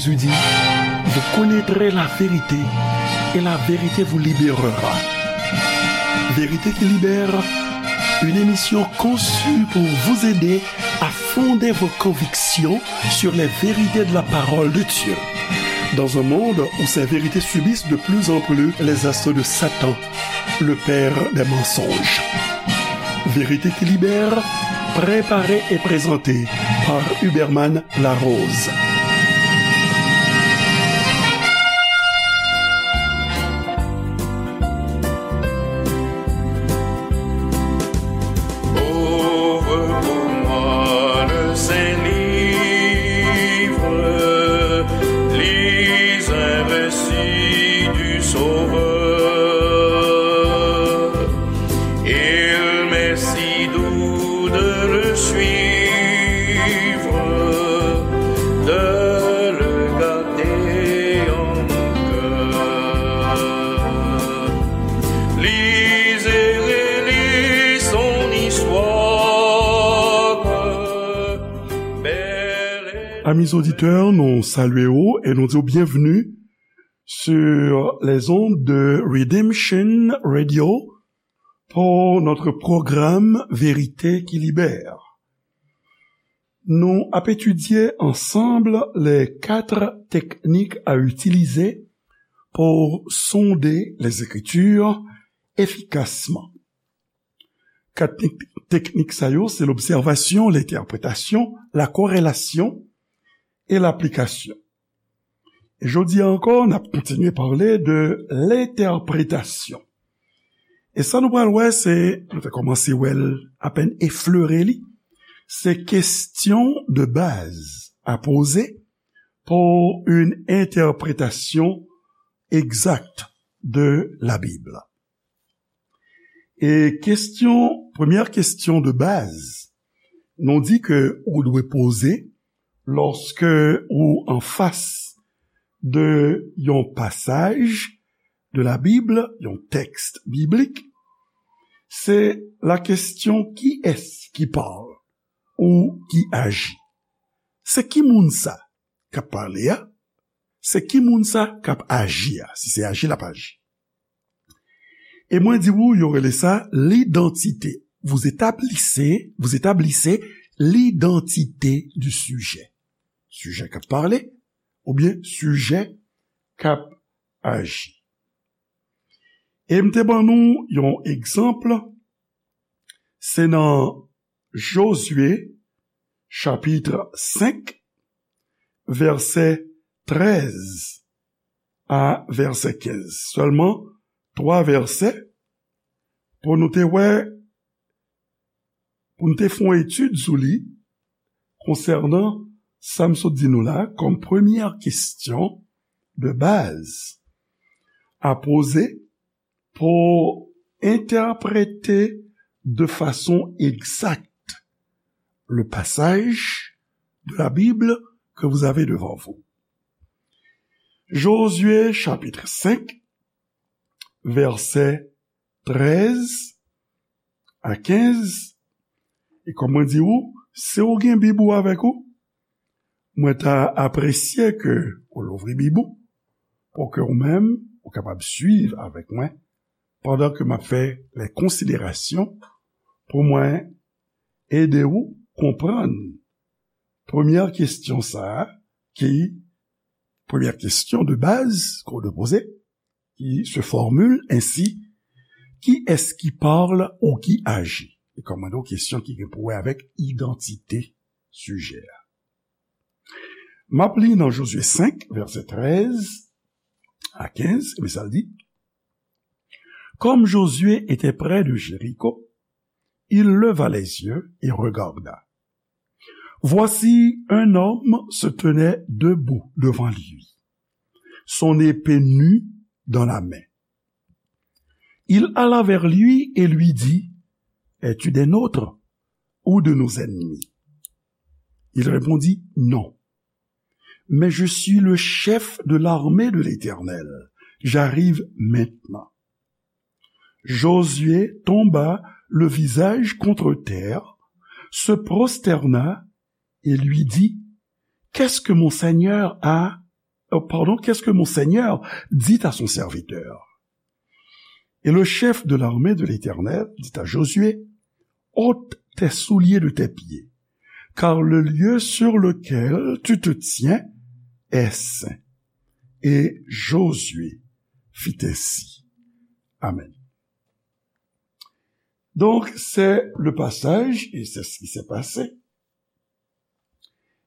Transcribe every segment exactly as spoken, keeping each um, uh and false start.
Jésus dit, vous connaîtrez la vérité et la vérité vous libérera. Vérité qui libère, une émission conçue pour vous aider à fonder vos convictions sur les vérités de la parole de Dieu. Dans un monde où ces vérités subissent de plus en plus les assauts de Satan, le père des mensonges. Vérité qui libère, préparée et présentée par Huberman Larose. Ouvre pour moi le Saint-Livre, lis un récit du Sauveur. Il m'est si doux de le suivre, de le garder en mon cœur. Lis et relis son histoire, belle et Amis auditeurs, nou salye w e nou di w byenvni sur les ondes de Redemption Radio pour notre programme Vérité qui libère. Nou ap etidye ansanm les quatre techniques à utiliser pour sonder les Écritures efficacement. Kat tek-, teknik sa yo, se lobsèvasyon, lentèpretasyon, lakorelasyon e laplikasyon. E jodi a ankò, n ap kontinye pale de lentèpretasyon. E sa nou pral wè, se, nou te kòmanse wè l apèn eflere li, se kesyon de baz à poser pour une interprétation exacte de la Bible. E kesyon, premyè kesyon de baz, nou di ke ou dwe poze lòske ou anfas de yon pasaj de la Bible, yon tèks biblik, se la kesyon kiyès ki pale ou ki aji. Se ki moun sa k ap pale a? Se ki moun sa k ap aji a, si se aji l ap aji? E mwen di w, yo rele sa lidantite. Vous établissez, vous établissez l'identité du sujet. Sijè k ap pale, oubyen sijè k ap aji. E m te ban nou yon egzanp, se nan Jozye, chapit senk, vèsè trèz a vèsè kenz. Sèlman twa vèsè pou nou te wè, pou nou te fè yon etid sou li konsènan sa m sot di nou la kòm premyè kesyon de baz à poser pour interpréter de façon exacte le passage de la Bible que vous avez devant vous. Josué chapitre cinq, vèsè trèz a kenz. E kòm mwen di ou, si ou gen Bib ou avèk ou, mwen ta apresye ke ou louvri Bib ou, pou ke ou menm, ou kapab swiv avèk mwen, pandan ke m ap fè lè konsiderasyon pou mwen ede ou konprann premyè kesyon sa a, ki, premyè kesyon de baz ke w dwe poze, qui se formule ainsi, qui est-ce qui parle ou qui agit? E kòm mwen di w, kesyon ki gen pou wè avèk idantite sijè a. M ap li nan Jozye senk, vèsè trèz a kenz, men sa l di, Comme Josué était près de Jéricho, il leva les yeux et regarda. Voici un homme se tenait debout devant lui, son épée nue dans la main. Il alla vers lui et lui dit, es-tu des nôtres ou de nos ennemis? Il répondit, non, mais je suis le chef de l'armée de l'Éternel. J'arrive maintenant. Josué tomba le visage contre terre, se prosterna et lui dit, qu'est-ce que mon Seigneur a euh, pardon, qu'est-ce que mon Seigneur dit à son serviteur? Et le chef de l'armée de l'Éternel dit à Josué, ôte tes souliers de tes pieds, car le lieu sur lequel tu te tiens est saint. Et Josué fit ainsi. Amen. Donc, c'est le passage, et c'est ce qui s'est passé.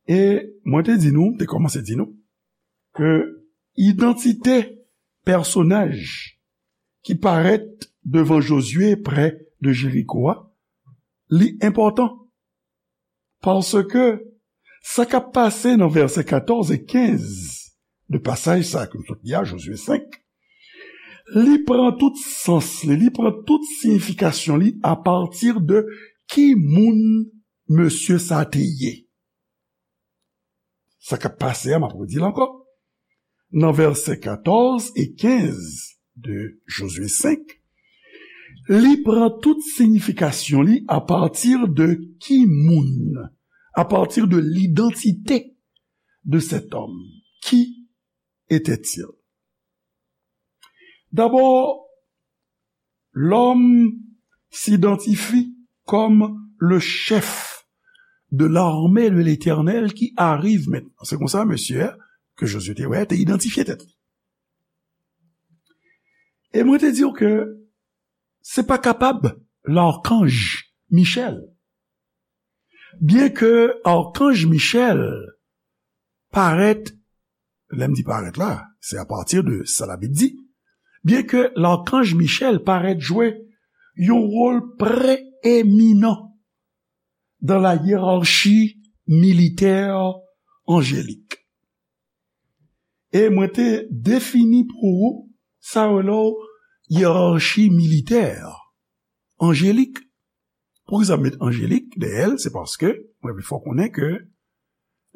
E mwen te di nou, te kòmanse di nou, ke idantite pèsonaj ki parèt devan Jozye prè de Jeriko a, li enpòtan. Paske sa k ap pase nan vèsè katòz e kenz de pasaj sa ke nou sot li a, Jozye senk, li pran tout sans li, li pran tout siyifikasyon li apati de ki moun mesye sa te ye. Sa k ap pase a, m ap redi l ankò. Nan vèsè katòz e kenz de Jozye senk, li pran tout siyifikasyon li apati de ki moun, apati de l'identité de cet homme. Qui était-il? D'abord, l'homme s'identifie comme le chef de l'armée de l'Éternel qui arrive maintenant. Se konsa, mesye a, ke Jozye te wè, te idantifye tèt li. E mwen te di w ke se pa kapab lakanj Michèl. Byen ke akanj Michèl parèt, lè m di parèt la, se apati de sa Labib di, byen ke lakanj Michèl parèt jwe yon wòl preeminan dans la hiérarchie militaire angélique. E mwen te defini pou ou sa yo rele yerarchi militè anjelik. Poukisa m met anjelik dèyè l? Se paske mwen vle fè w konnen ke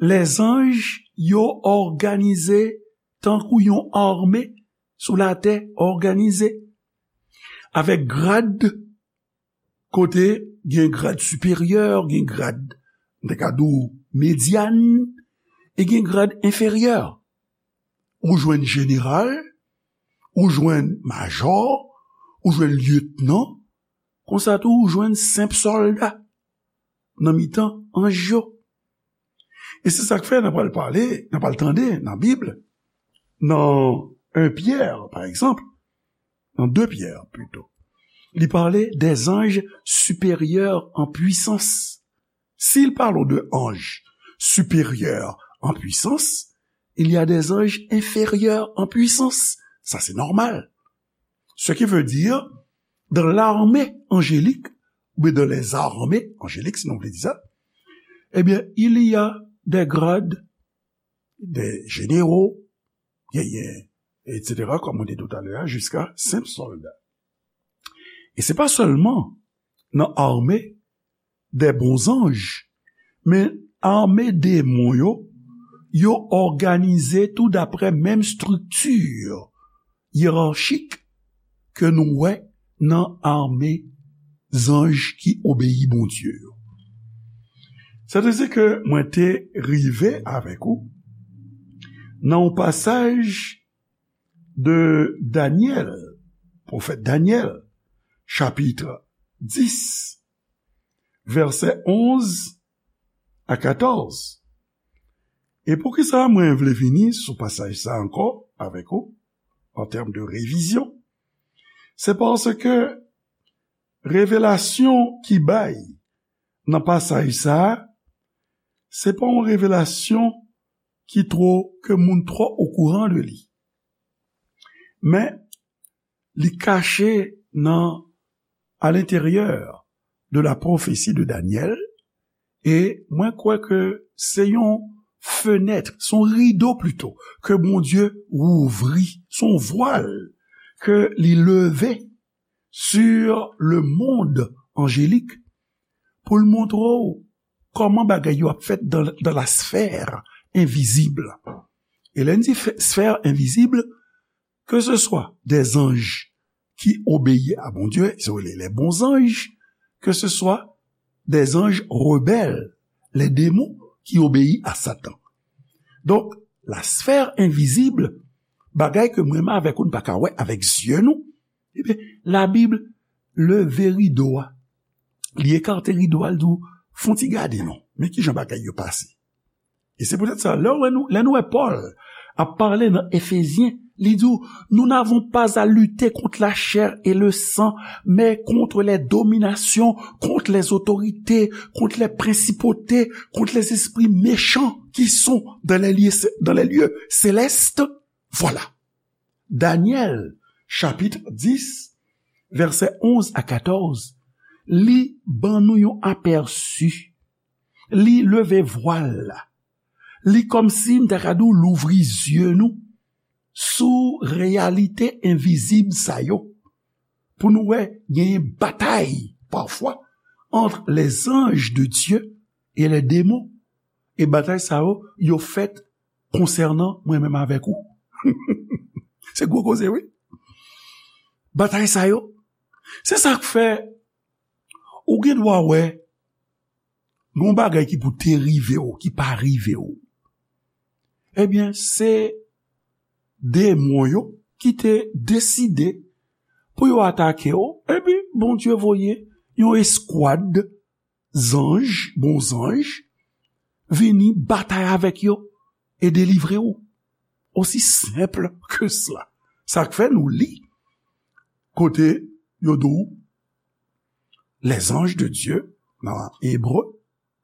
lèzanj yo òganize tankou yon ame sou latè òganize, avèk grad kote gen grad siperyè, gen grad, m te ka di w, medyan, e gen grad enferyè. Ou jwenn jeneral, ou jwenn majò, ou jwenn lyetnan, konsa tou ou jwenn senp sòlda nan mitan anj yo. E se sa k fè n ap pral pale, n ap pral tande nan Bib, nan en Pyè, pa egzanp, nan de Pyè pito, li pale des anges supérieurs en puissance. S'il parle de anges supérieurs en puissance, il y a des anges inférieurs en puissance. Sa se nòmal. Ce qui veut dire, dans l'armée angélique, oubyen dans les armées angéliques, si nou vle di sa, ebyen, il y a des grades, des généraux, genyen, et cetera, kòm mwen te di w talè a, jiska senp sòlda. E se pa sèlman nan ame des bons anges, men ame demon yo, yo òganize tou daprè menm estrikti yerarchik ke nou wè nan ame zanj ki obeyi Bondye yo. Sètadi ke mwen te rive avèk ou nan yon pasaj de Danyèl, pwofèt Danyèl, chapit dis, vèsè onz a katòz. E poukisa mwen vle vini sou pasaj sa ankò avèk ou, an tèm de revizyon? Se paske revelasyon ki bay nan pasaj sa a, se pa yon revelasyon ki twò, ke moun twò okouran de li. Men, li kache nan, à l'intérieur de la prophétie de Daniel, e mwen kwè ke se yon fenèt, se yon rido plito, ke Bondye wouvri, se yon vwal ke li leve sur le monde angélique pou l montre w kòman bagay yo ap fèt dans, dans la sphère invisible. E lè n di fè, sphère invisible, que ce soit des anges qui obéissent à Bondye, se rele les bons anges, que ce soit des anges rebelles, les démons qui obéissent à Satan. Donk, la sphère invisible, bagay ke mwen menm avèk ou n pa ka wè avèk zye nou, ebyen, Labib leve rido a. Li ekate rido a, l di w, fon ti gade non, men kijan bagay yo pase. E se poutèt sa, lè w wè nou, lè nou wè Pòl ap pale nan Efezyen, li di w, nous n'avons pas à lutter contre la chair et le sang, mais contre les dominations, contre les autorités, contre les principautés, contre les esprits méchants qui sont dans les lieux, dans les lieux célestes. Voilà. Danyèl, chapit dis, vèsè onz a katòz, li ban nou yon apèsi. Li leve vwal la. Li kòmsi m ta ka di w louvri zye nou sou reyalite envizib sa yo. Pou nou wè, genyen batay, pafwa, entre les anges de Dieu et les démons. E batay sa yo, yo fèt konsènan mwen menm avèk ou. Se gwo koze, wi. Batay sa yo, se sa k fè ou gen dwa wè gon bagay ki pou te rive w, ki pa rive w. Ebyen, se demon yo ki te deside pou yo atake w, epi Bondye voye yon eskwad zanj, bon zanj, vini batay avèk yo e delivre w. Aussi simple que cela. Sa k fè nou li kote yo di w, les anges de Dieu, nan Ebre,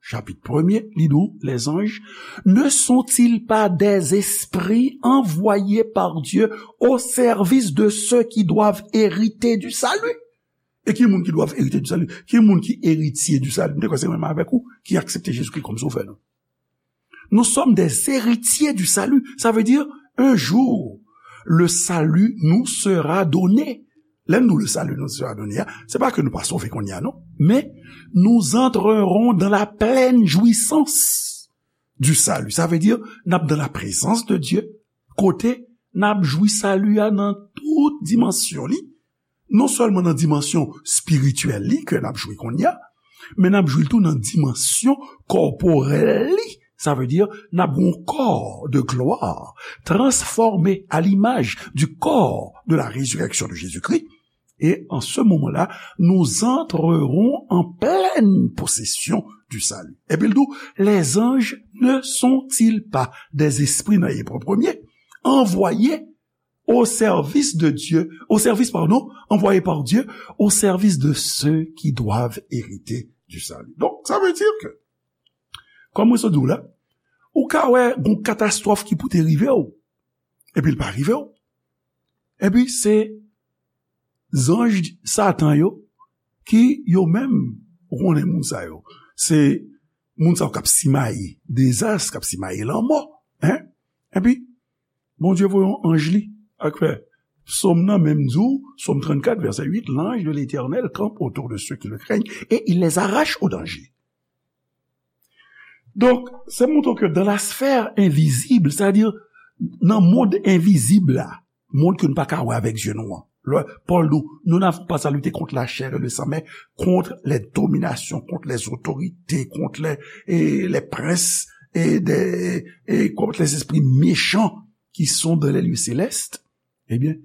chapit premye, li di w, les anges, ne sont-ils pas des esprits envoyés par Dieu au service de ceux qui doivent hériter du salut? E ki moun ki doivent hériter du salut? Ki moun ki eritye du salut? M te kwè se mwen menm avèk ou ki aksepte Jezikri kòm Sovè nou. Nous sommes des héritiers du salut. Ça veut dire, un jour, le salut nous sera donné. Lè nou le salut nous sera donné, se pa ke nou pa sove kounye a, non. Men, nous entrerons dans la pleine jouissance du salut. Ça veut dire, n ap dans la présence de Dieu, kote n ap jwi sali a nan tout dimansyon li. Non sèlman nan dimansyon espirityèl li ke n ap jwi kounye a, men n ap jwi l tou nan dimansyon kòporèl li. Sa vle di, n ap gen yon kò de gloire transformé à l'image du corps de la résurrection de Jésus-Christ. Et en ce moment-là, nous entrerons en pleine possession du salut. Epi l di w, les anges ne sont-ils pas des esprits, nan Ebre premye, envoyés au service de Dieu, au service, pardon, envoyés par Dieu, au service de ceux qui doivent hériter du salut. Donk, sa vle di ke, kòm mwen sot di w la, ou ka wè gon katastwòf ki pou te rive w, epi l pa rive w. Epi se zanj Satan yo ki yo menm, ou konnen moun sa yo. Se moun sa yo k ap simaye dezas, k ap simaye lanmò. Hein? Epi, Bondye voye yon anj li, ak fè. Sòm nan menm di w, Sòm trannkat, vèsè uit, l'ange de l'Éternel campe autour de ceux qui le craignent et il les arrache au danger. Donk, se montre ke dans la sphère invisible, c'est-à-dire nan mond envizib la, mond ke nou pa ka wè avèk zye nou an. Lè Pòl di w, nous n'avons pas à lutter contre la chair et le sang, mais contre les dominations, contre les autorités, contre les, et les princes, et, des, et contre les esprits méchants qui sont dans les lieux célestes. Ebyen,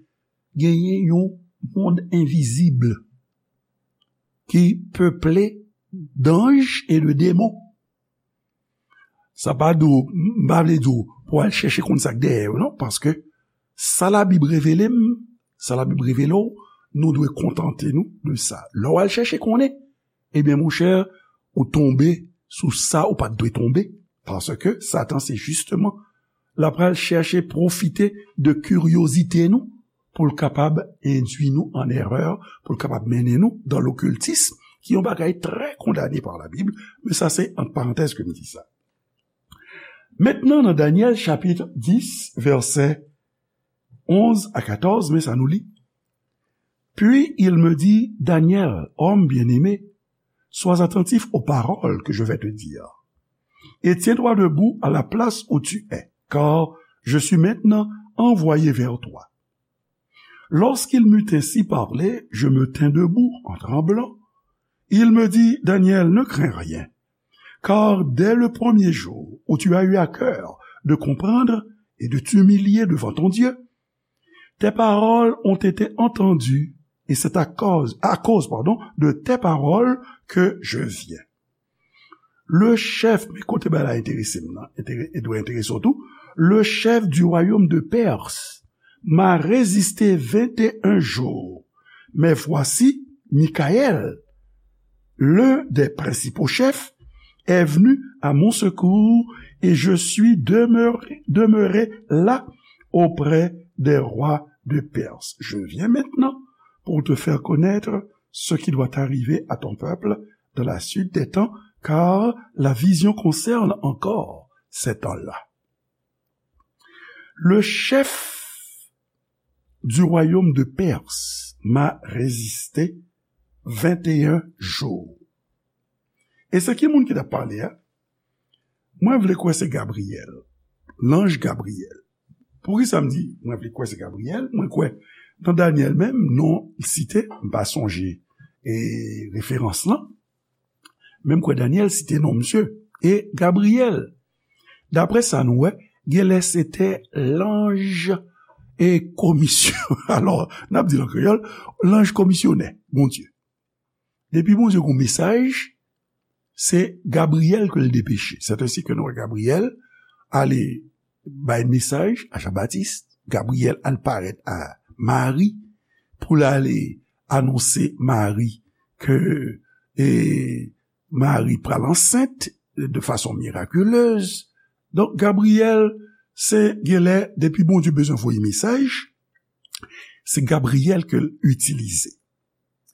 genyen yon mond envizib ki peple d'anges et de démons. Sa pa di w, m pa vle di w pou w al chèche konn sa k dèyè yo, non, paske sa Labib revele m, sa Labib revele w, nou dwe kontante nou de sa. Lè w al chèche konnen, ebyen, monchè, ou tonbe sou sa ou pa t dwe tonbe, paske Satan se jisteman l ap pral chèche pwofite de kiryozite nou pou l kapab endui nou an erè, pou l kapab mennen nou dans l'occultisme, ki yon bagay trè kondane pa Labib, men sa se ant parantèz ke m di sa. Mentnan, nan Danyèl chapit dis, vèsè onz a katòz, men sa nou li. Puis il me dit, Daniel, homme bien-aimé, sois attentif aux paroles que je vais te dire, et tiens-toi debout à la place où tu es, car je suis maintenant envoyé vers toi. Lorsqu'il m'eut ainsi parlé, je me tins debout en tremblant. Il me dit, Daniel, ne crains rien, car dès le premier jour où tu as eu à cœur de comprendre et de t'humilier devant ton Dieu. Tes paroles ont été entendues, et c'est à cause, à cause, pardon, de tes paroles que je viens. Le chef, men kote bagay la enterese m nan, entere-, e dwe enterese w tou, le chef du royaume de Perse m'a résisté vingt et un jours. Mais voici, Michaël, l'un des principaux chefs, est venu à mon secours et je suis demeuré, demeuré là auprès des rois de Perse. Je viens maintenant pour te faire connaître ce qui doit arriver à ton peuple dans la suite des temps, car la vision concerne encore ces temps-là. Le chef du royaume de Perse m'a résisté vingt et un jours. E se ki moun ki t ap pale a? Mwen vle kwè se Gabriyèl, lanj Gabriyèl. Poukisa m di mwen vle kwè se Gabriyèl? Mwen kwè nan Danyèl menm, non l site, m pa sonje e referans lan, men m kwè Danyèl site non misye. E Gabriyèl, daprè sa nou wè, genlè se te lanj e komisyon. Alò, n ap di l an kreyòl, lanj komisyonè Bondye. Depi Bondye gen yon mesaj, se Gabriyèl ke l depeche. C'est ainsi que nou wè Gabriyèl ale bay mesaj a Jan Batis, Gabriyèl al parèt a Mari pou l ale anonse Mari ke, e, Mari pral ansent de fason mirakilez. Donk, Gabriyèl, se genlè, depi Bondye bezwen voye mesaj, se Gabriyèl ke l itilize.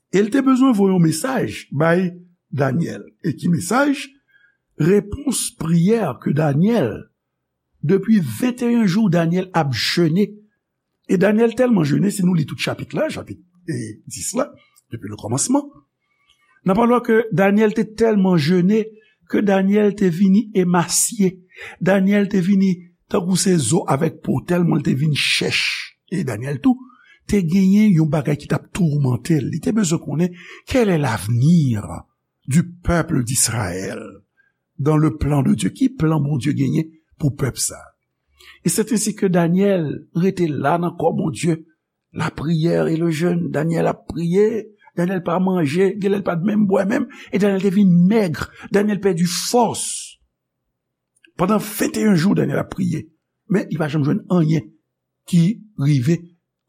E l te bezwen voye yon mesaj bay Danyèl. E ki mesaj? Repons priyè ke Danyèl, depi venteyen jou, Danyèl ap jene. E Danyèl tèlman jene, si nou li tout chapit la, chapit, e, dis la, depi le kòmansman, n ap wè ke Danyèl te tèlman jene ke Danyèl te vini emasye. Danyèl te vini tankou se zo avèk po, tèlman l te vin chèch. E Danyèl tou te genyen yon bagay ki t ap toumante l. Li te bezwen konnen, quel est l'avenir du peuple d'Israël dans le plan de Dieu? Ki plan Bondye genyen pou pèp sa? E c'est ainsi que Danyèl rete la nan kò Bondye, la prière et le jeûne. Danyèl ap priye, Danyèl pa manje, genlè l pa t menm bwè menm, e Danyèl te vin mèg, Danyèl pèdi fòs. Pandan venteyen jou, Danyèl ap priye, men li pa janm jwenn anyen ki rive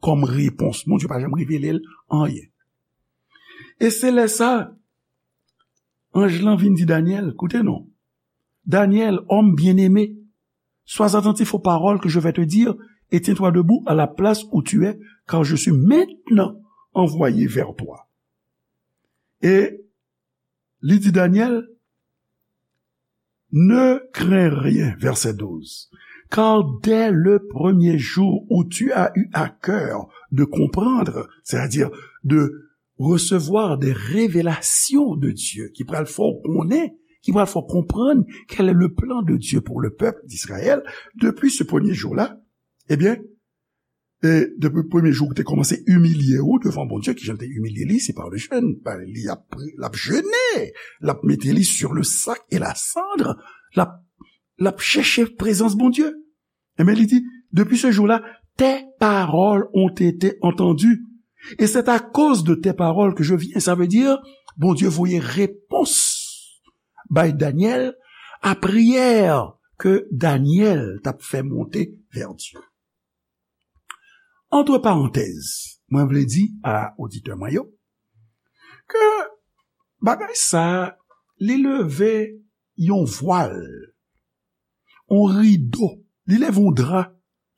kòm repons. Bondye pa janm revele l anyen. E se lè sa, anj lan vin di Danyèl, koute non, Danyèl, homme bien-aimé, sois attentif aux paroles que je vais te dire et tiens-toi debout à la place où tu es, car je suis maintenant envoyé vers toi. E li di Danyèl, ne crains rien, verset douze, car dès le premier jour où tu as eu à cœur de comprendre, c'est-à-dire de recevoir des révélations de Dieu, ki pral fè w konnen, ki pral fè w konprann quel est le plan de Dieu pour le peuple d'Israël, depuis ce premier jour-là, ebyen, e depi premye jou ou te kòmanse imilye ou devan Bondye, ki jan l te imilye li, se pa le jeûne, pa li ap pri-, l ap jene, l ap mete li sur le sac et la cendre, l ap, l ap chèche prezans Bondye. Ebyen, li di, depuis ce jour-là, tes paroles ont été entendues. Et c'est à cause de tes paroles que je viens. Sa vle di, Bondye voye repons bay Danyèl a priyè ke Danyèl t ap fè monte vè Dye. Antre parantèz, mwen vle di a oditè mwen yo ke bagay sa, li leve yon vwal, yon rido, li leve yon dra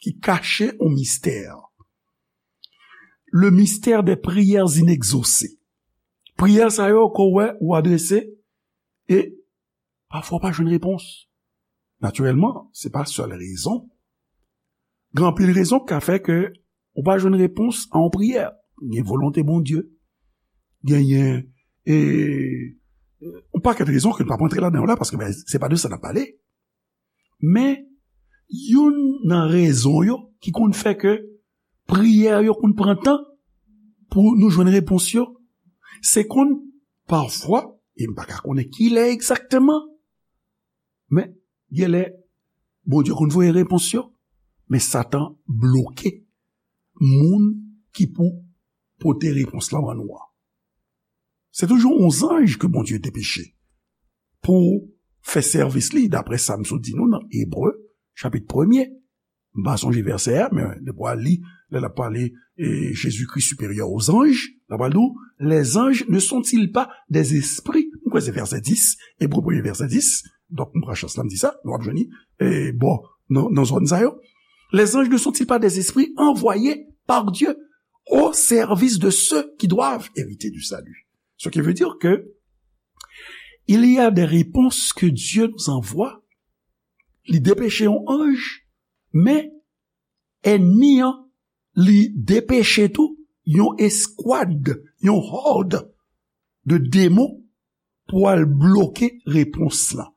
ki kache yon mistè. Le mystère des prières inexaucées. Priyè sa yo ke w wè ou adrese e pafwa w pa jwenn repons. Natirèlman, se pa sèl rezon. Gen anpil rezon ki ka fè ke ou pa jwenn repons a yon priyè. Gen volonte Bondye. Genyen, e, yon pakèt rezon ke n p ap rantre ladan yo la, paske, ben, se pa de sa n ap pale. Men, youn nan rezon yo ki konn fè ke priyè yo konn pran tan pou nou jwenn repons yo, se konn pafwa, e m pa ka konnen kilè egzakteman, men genlè Bondye konn voye repons yo. Men Satan bloke moun ki pou pote repons lan ban nou an. Se toujou yon zanj ke Bondye depeche pou fè sèvis li, daprè sa m sot di nou nan Ebre, chapit premye. M pa sonje vèsè a, men depi w al li, lè l ap pale, e, Jésus-Christ supérieur aux anges, l ap pale di w, les anges ne sont-ils pas des esprits? M kwè se vèsè dis, Ebre premye vèsè dis. Donk, m pran chans la, m di sa, nou ap jwenn li, e, bon, nan, nan zòn sa yo. Les anges ne sont-ils pas des esprits envoyés par Dieu au service de ceux qui doivent hériter du salut? Ce qui veut dire que il y a des réponses que Dieu nous envoie. Li depeche yon anj, men ènmi an, li depeche tou yon eskwad, yon hòd de demon pou al bloke repons lan.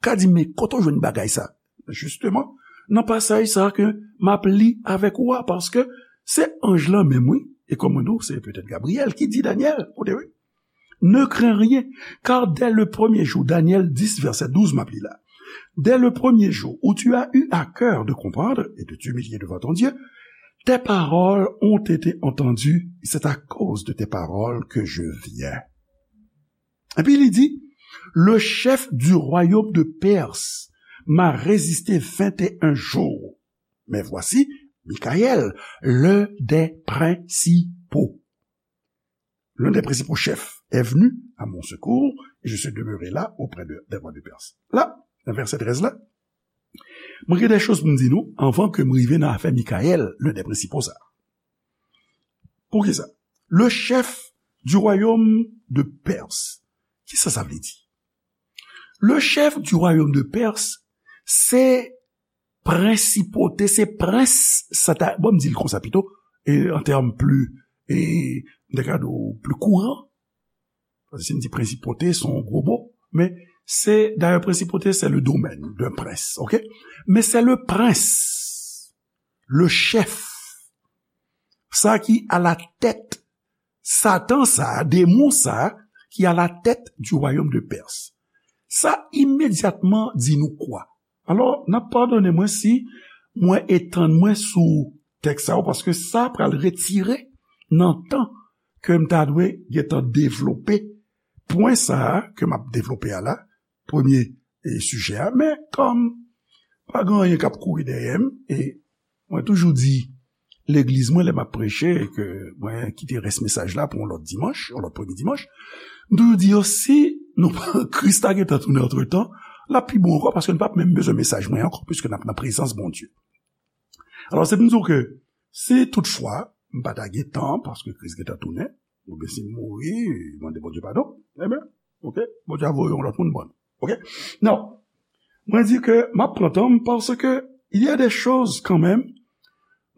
Ka di, men kote w jwenn bagay sa? Jisteman, nan pasaj sa ke m ap li avèk ou a, paske se anj lan menm, wi. E kòm mwen di w, se petèt Gabriyèl ki di Danyèl, kote, wi. Ne crains rien, car dès le premier jour, Daniel dix, verset douze, m ap li la. Dès le premier jour où tu as eu à cœur de comprendre et de t'humilier devant ton Dieu, tes paroles ont été entendues, et c'est à cause de tes paroles que je viens. Epi li di, le chef du royaume de Perse m'a résisté vingt et un jours. Mais voici, Michaël, l'un des principaux, l'un des principaux chefs est venu à mon secours, et je suis demeuré là auprès de, des rois de Perse. La, nan vèsè trèz la, mwen gen de choz pou m di nou, anvan ke m rive nan afè Michaël, l'un des principaux sa. Poukisa? Le chef du royaume de Perse. Kisa sa vle di? Le chef du royaume de Perse, se prensipote, se prens, sa ta, bon, m di l konsa pito, e an tèm pli, e, m ta ka di w pli kouran, paske si n di prensipote, se yon gwo mo, men se, dayè, prensipote, c'est le domaine d'un prince, ok? Men se le prince, le chef, sa ki à la tête, Satan sa, demon sa, ki à la tête du royaume de Perse. Sa imedyatman di nou kwa? Alò, n ap padone mwen si mwen etann mwen sou tèks sa yo, paske sa pral retire nan tan ke m ta dwe gentan devlope pwen sa a ke m ap devlope a la, premye, e, sijè a. Men kòm pa gen anyen k ap kouri dèyè m, e mwen toujou di legliz mwen lè m ap preche, e ke mwen kite rès mesaj la pou yon lòt dimanch, yon lòt premye dimanch, m toujou di yo, si nou pa, Kris ta gentan tounen antretan, l ap pi bon ankò, paske n p ap menm bezwen mesaj mwen ankò, piske n ap nan prezans Bondye. Alò, se pou m di w ke si toutfwa m pa ta gen tan, paske Kris gentan tounen, oubyen si m mouri, mande Bondye padon, ebyen, ok, Bondye a voye yon lòt moun ban nou. Ok? Non. Mwen di ke m ap pran tan m, paske il y a des choses kanmenm,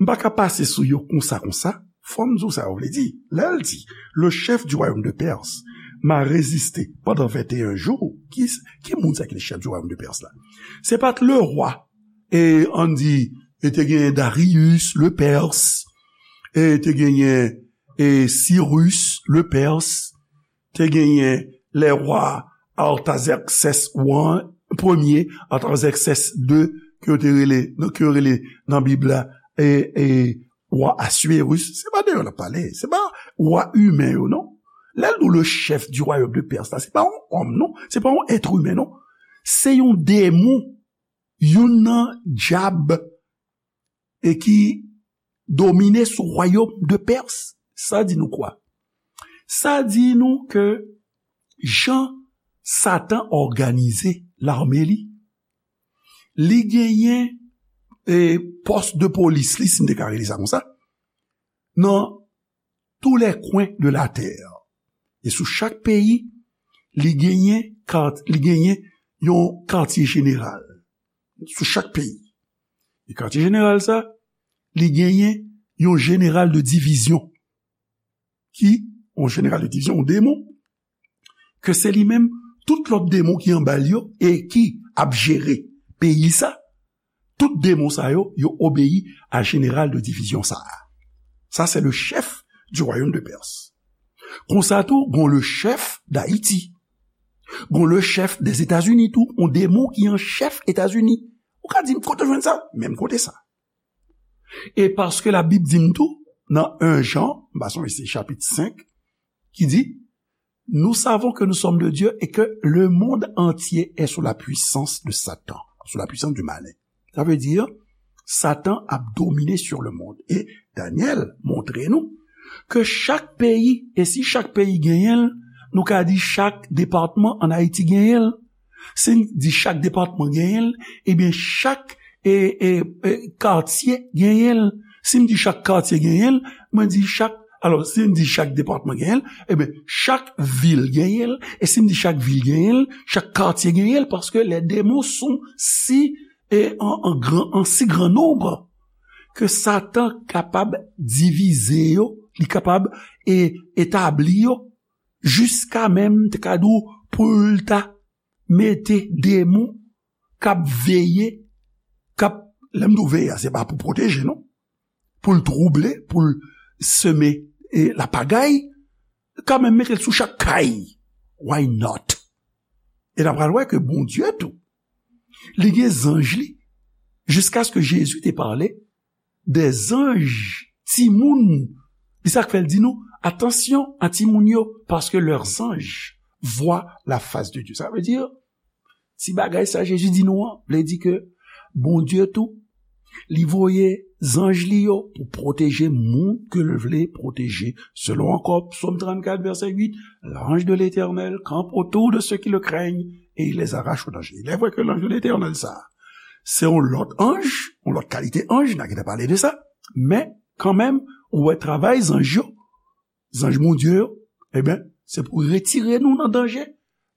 m pa ka pase sou yo konsa, konsa. Fò m di w sa yo vle di. Lè l di, le chef du royaume de Perse m'a résisté pendant vingt et un jours. Ki, ki moun sa ki le chef du royaume de Perse la? Se pa t le roi, e ann di, e te genyen Darius le Perse, e te genyen, e Cyrus le Perse, te genyen le roi Artaxerxès wan, premye, Artaxerxès de, ke yo te rele, ke yo rele nan Bib la, e, e, wa Aswirus. Se pa de yo n ap pale, se pa wa imen yo, non. Lè l di w le chef du royaume de Perse la, se pa yon òm, non. Se pa yon èt imen, non. Se yon demon, youn nan dyab, e ki domine sou wayòm de Pèrs. Sa di nou kwa? Sa di nou ke jan Satan òganize lame li, li genyen, e, pòs de polis li, si m te ka rele sa konsa, nan tous les coins de la terre. E sou chak peyi, li genyen kat-, li genyen yon katye jeneral. Sou chak peyi. E katye jeneral sa, li genyen yon jeneral de divizyon. Ki, yon jeneral de divizyon, yon demon, ke se li menm, tout lòt demon ki anba l yo, e ki ap jere peyi sa, tout demon sa yo, yo obeyi a jeneral de divizyon sa a. Sa, se le chef du royaume de Perse. Konsa tou, gon le chef d'Haïti. Gon le chef des États-Unis tou, yon demon ki an chèf Etazini. Ou ka di m, kote w jwenn sa? Menm kote sa. E paske Labib di m tou, nan en Jan, m pa sonje se chapit senk, ki di, nous savons que nous sommes de Dieu et que le monde entier est sous la puissance de Satan, sous la puissance du malin. Sa vle di, Satan ap domine sur le monde. E Daniel montre nou ke chak peyi, e si chak peyi genyen l, nou ka di chak depatman ann Ayiti genyen l. Si n di chak depatman genyen l, ebyen chak e, e, e, katye genyen l. Si m di chak katye genyen l, mwen di chak, alò, si m di chak depatman genyen l, ebyen, chak vil genyen l. E si m di chak vil genyen l, chak katye genyen l, paske les démons sont si, e, en, en grand, en si grand nombre, ke Satan kapab divize yo, li kapab e, etabli yo, jiska menm, te ka di w, pou l ta mete demon k ap veye, k ap, lè m di w veye a, se pa pou pwoteje, non. Pou l twouble, pou l seme e, lapagay, kanmenm mete l sou chak kay. Why not? E n a pral wè ke Bondye tou, li gen zanj li, jiskaske Jezi te pale, des anges, timoun. Li sa k fè l di nou, attention a timoun yo, parce que leurs anges voient la face de Dieu. Sa vle di, ti bagay sa Jezi di nou an, vle di ke Bondye tou, li voye zanj li yo pou pwoteje moun ke l vle pwoteje. Selon ankò Psaume trente-quatre, verset huit, l'ange de l'Éternel campe autour de ceux qui le craignent et il les arrache au danger. Il est vrai que l'ange de l'Éternel sa, se yon lòt anj, yon lòt kalite anj, n a gentan pale de sa, men kanmenm, ou wè travay zanj yo, zanj Bondye yo, ebyen, se pou retire nou nan danje,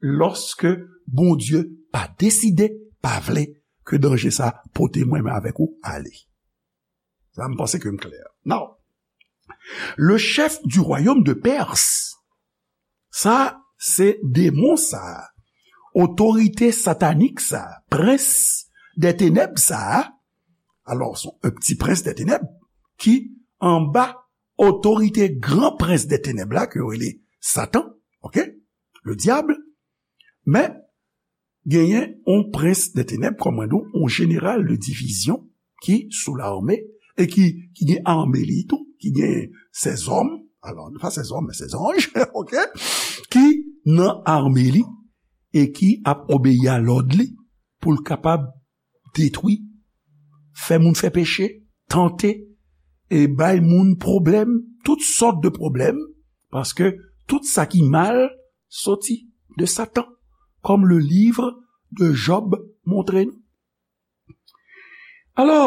lòske Bondye pa deside, pa vle ke danje sa pote mwen menm avèk ou ale. Sa, m panse ke m klè. Now, le chef du royaume de Perse, sa, se demon sa, otorite satanik sa, prens dè tenèb sa, alò, se yon ti prens dè tenèb ki anba otorite gran prens dè tenèb la, ke yo rele Satan, oke? Le diable. Men, genyen yon prens dè tenèb, kòm mwen di w, yon jeneral de divizyon ki sou lame e ki, ki gen ame li tou, ki gen sèzòm, alò, pa sèzòm, men sèzanj, oke? Ki nan ame li e ki ap obeyi a lòd li pou l kapab detwi, fè moun fè peche, tante, e bay moun pwoblèm, tout sòt de pwoblèm, paske tout sa ki mal soti de Satan, kòm le livre de Job montre nou. Alò,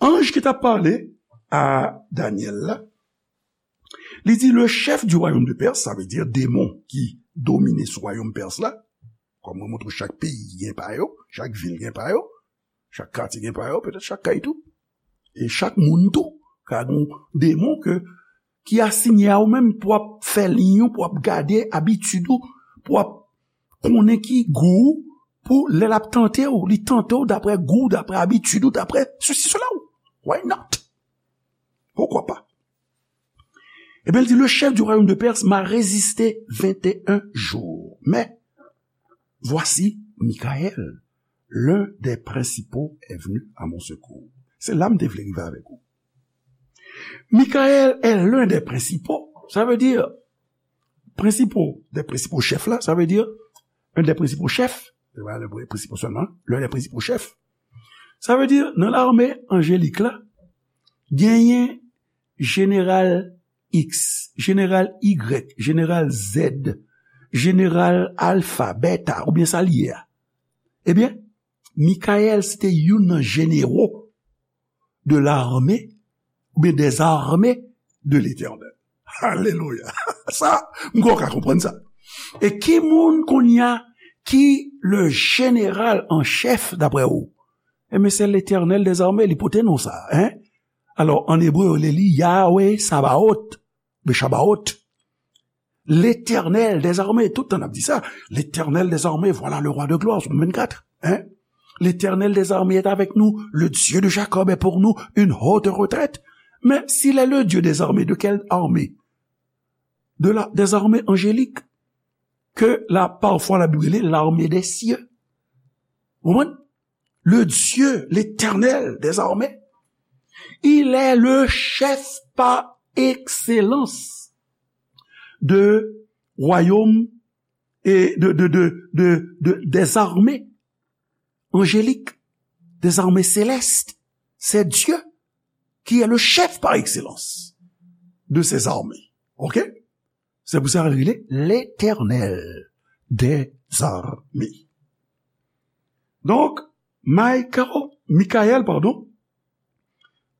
anj ki t ap pale a Danyèl la, li di, le chef du royaume de Perse, sa vle di demon ki domine sou wayòm Pès la, kòm mwen montre w, chak peyi gen pa yo, chak vil gen pa yo, chak katye gen pa yo, petèt chak kay tou. E chak moun tou ka gen yon demon ke, ki asiyen a ou menm pou ap fè liy ou, pou ap gade abitid ou, pou ap konnen ki gou ou, pou lè l ap tante w, li tante w daprè gou w, daprè abitid ou, daprè sesi, sela ou. Why not? Poukwa pa? Ebyen, l di, le chef du royaume de Perse m'a résisté vingt et un jours. Mais voici, Michael, l'un des principaux, est venu à mon secours. Se la m te vle rive avèk ou. Michael est l'un des principaux. Sa vle di, prensipal, des principaux chefs la, sa vle di, un des principaux chefs, se pa le principal sèlman, l'un des principaux chefs. Sa vle di, nan lame anjelik la, genyen jeneral X, jeneral Y, jeneral Z, jeneral Alfa, Beta, oubyen sa l ye a. Ebyen, Michael se te youn nan jenero de l'armée, oubyen des armées de l'Éternel. Alelouya. Sa, m kwè w ka konprann sa. E ki moun kounye a ki le jeneral an chèf, daprè ou? Ebyen, se Letènèl dèzame, li pote non sa, en? Alò, an ebre, yo rele li Yahweh Sabaot, Meshabaot. Letènèl dèzame, tout tan n ap di sa, Letènèl dèzame, voilà le roi de gloire, Sòm vennkat, en? Letènèl dèzame est avec nous, le Dieu de Jacob est pour nous une haute retraite. Men, s'il est le Dieu des armées, de quelle armée? De la, des armées angéliques, ke la, pafwa, Labib rele l'armée des cieux. Ou konprann? Le Dieu, l'Éternel des armées, Il est le chef par excellence de royaume et de, de, de, de, de, des armées angéliques, des armées célestes. C'est Dieu qui est le chef par excellence de ces armées. OK? C'est pour ça qu'il est l'Éternel des armées. Donc, Michael, Michael, pardon,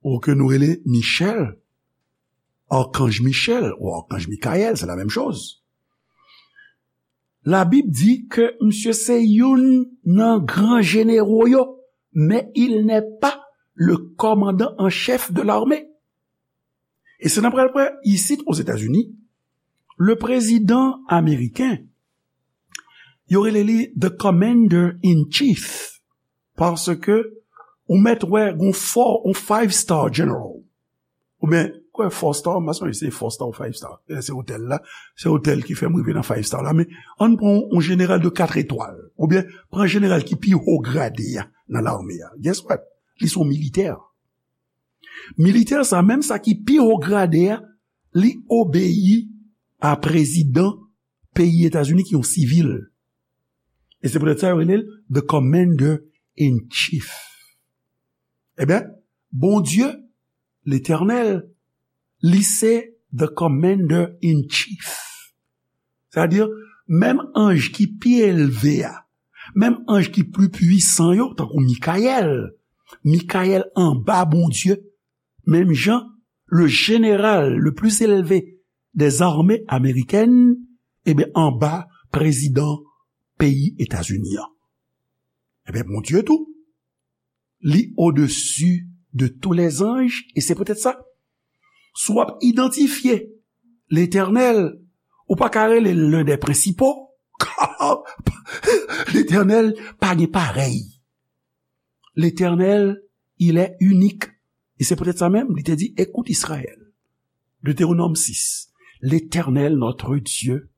ou ke nou rele Michel, Archange Michel ou Archange Michael, c'est la même chose. Labib di ke misye se youn nan gran jenero yo, men il n'est pas le commandant en chef de l'armée. E se n ap pral wè isit Ozetazini, le prezidan ameriken, yo rele li the commander in chief, paske ou mèt wè gon four, on five star general. Oubyen, kwè four star, m pa sonje se four star ou five star. E se otèl la, se otèl ki fè m rive nan five star la. Men, ann pran yon jeneral de kat etwal. Oubyen, pran jeneral ki pi wo grade a nan lame a. Guess what? Li se yon militè. Militè sa, menm sa ki pi wo grade a, li obeyi a prezidan peyi Etazini ki yon sivil. E se poutèt sa yo rele l the commander in chief. Ebyen, Bondye, Letènèl, li se the commander in chief. Sètadi, menm anj ki pi elve a, menm anj ki pli pwisan yo, tankou Mikayèl, Mikayèl anba Bondye, menm jan, le général le plus élevé des armées américaines, ebyen, anba prezidan peyi Etazini an. Ebyen, Bondye tou, li odesi de tous les anges, e se poutèt sa, si w ap idantifye Letènèl, ou pa ka rele l l'un des principaux. Letènèl pa gen parèy. Letènèl, il est unique. E se poutèt sa menm, li te di, écoute Israël. Deutéronome six. L'Éternel, notre Dieu,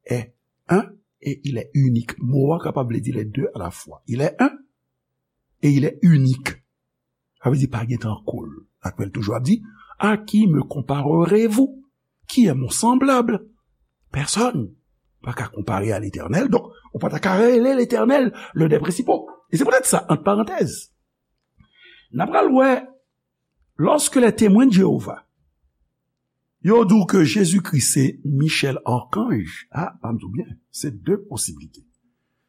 est un et il est unique. Mo a kapab vle di les deux à la fois. Il est un et il est unique. Sa vle di pa gen tankou l. Apre l toujou ap di, à qui me comparerez-vous? Qui est mon semblable? Personne. Pa ka konpare a Letènèl. Donk, ou pa ta ka rele Letènèl l'un des principaux. E se poutèt sa, ant parantèz, n ap pral wè, lorsque les Témoins de Jéhovah, yo di w ke Jezikri se Michel Archange, a, ban m di w byen, se de posiblite.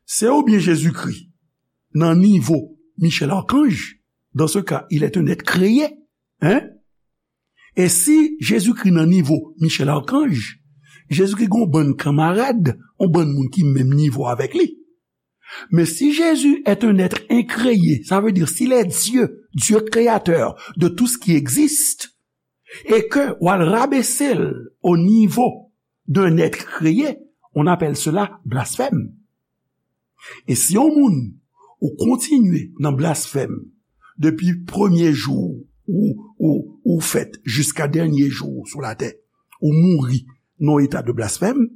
Se oubyen Jezikri nan nivo Michel Archange, dans ce cas, il est un être créé, hein? E si Jezikri nan nivo Michel Archange, Jezikri gen yon bann kanmarad, yon bann moun ki menm nivo avèk li. Mais si Jésus est un être incréé, ça veut dire s'il est Dieu, Dieu créateur de tout ce qui existe, et que w al rabese l au niveau d'un être créé, on appelle cela blasphème. E si yon moun ou kontinye nan blasfèm depi premye jou ou, ou, ou fèt jiska dènye jou ou sou latè, ou mouri nan yon eta de blasfèm,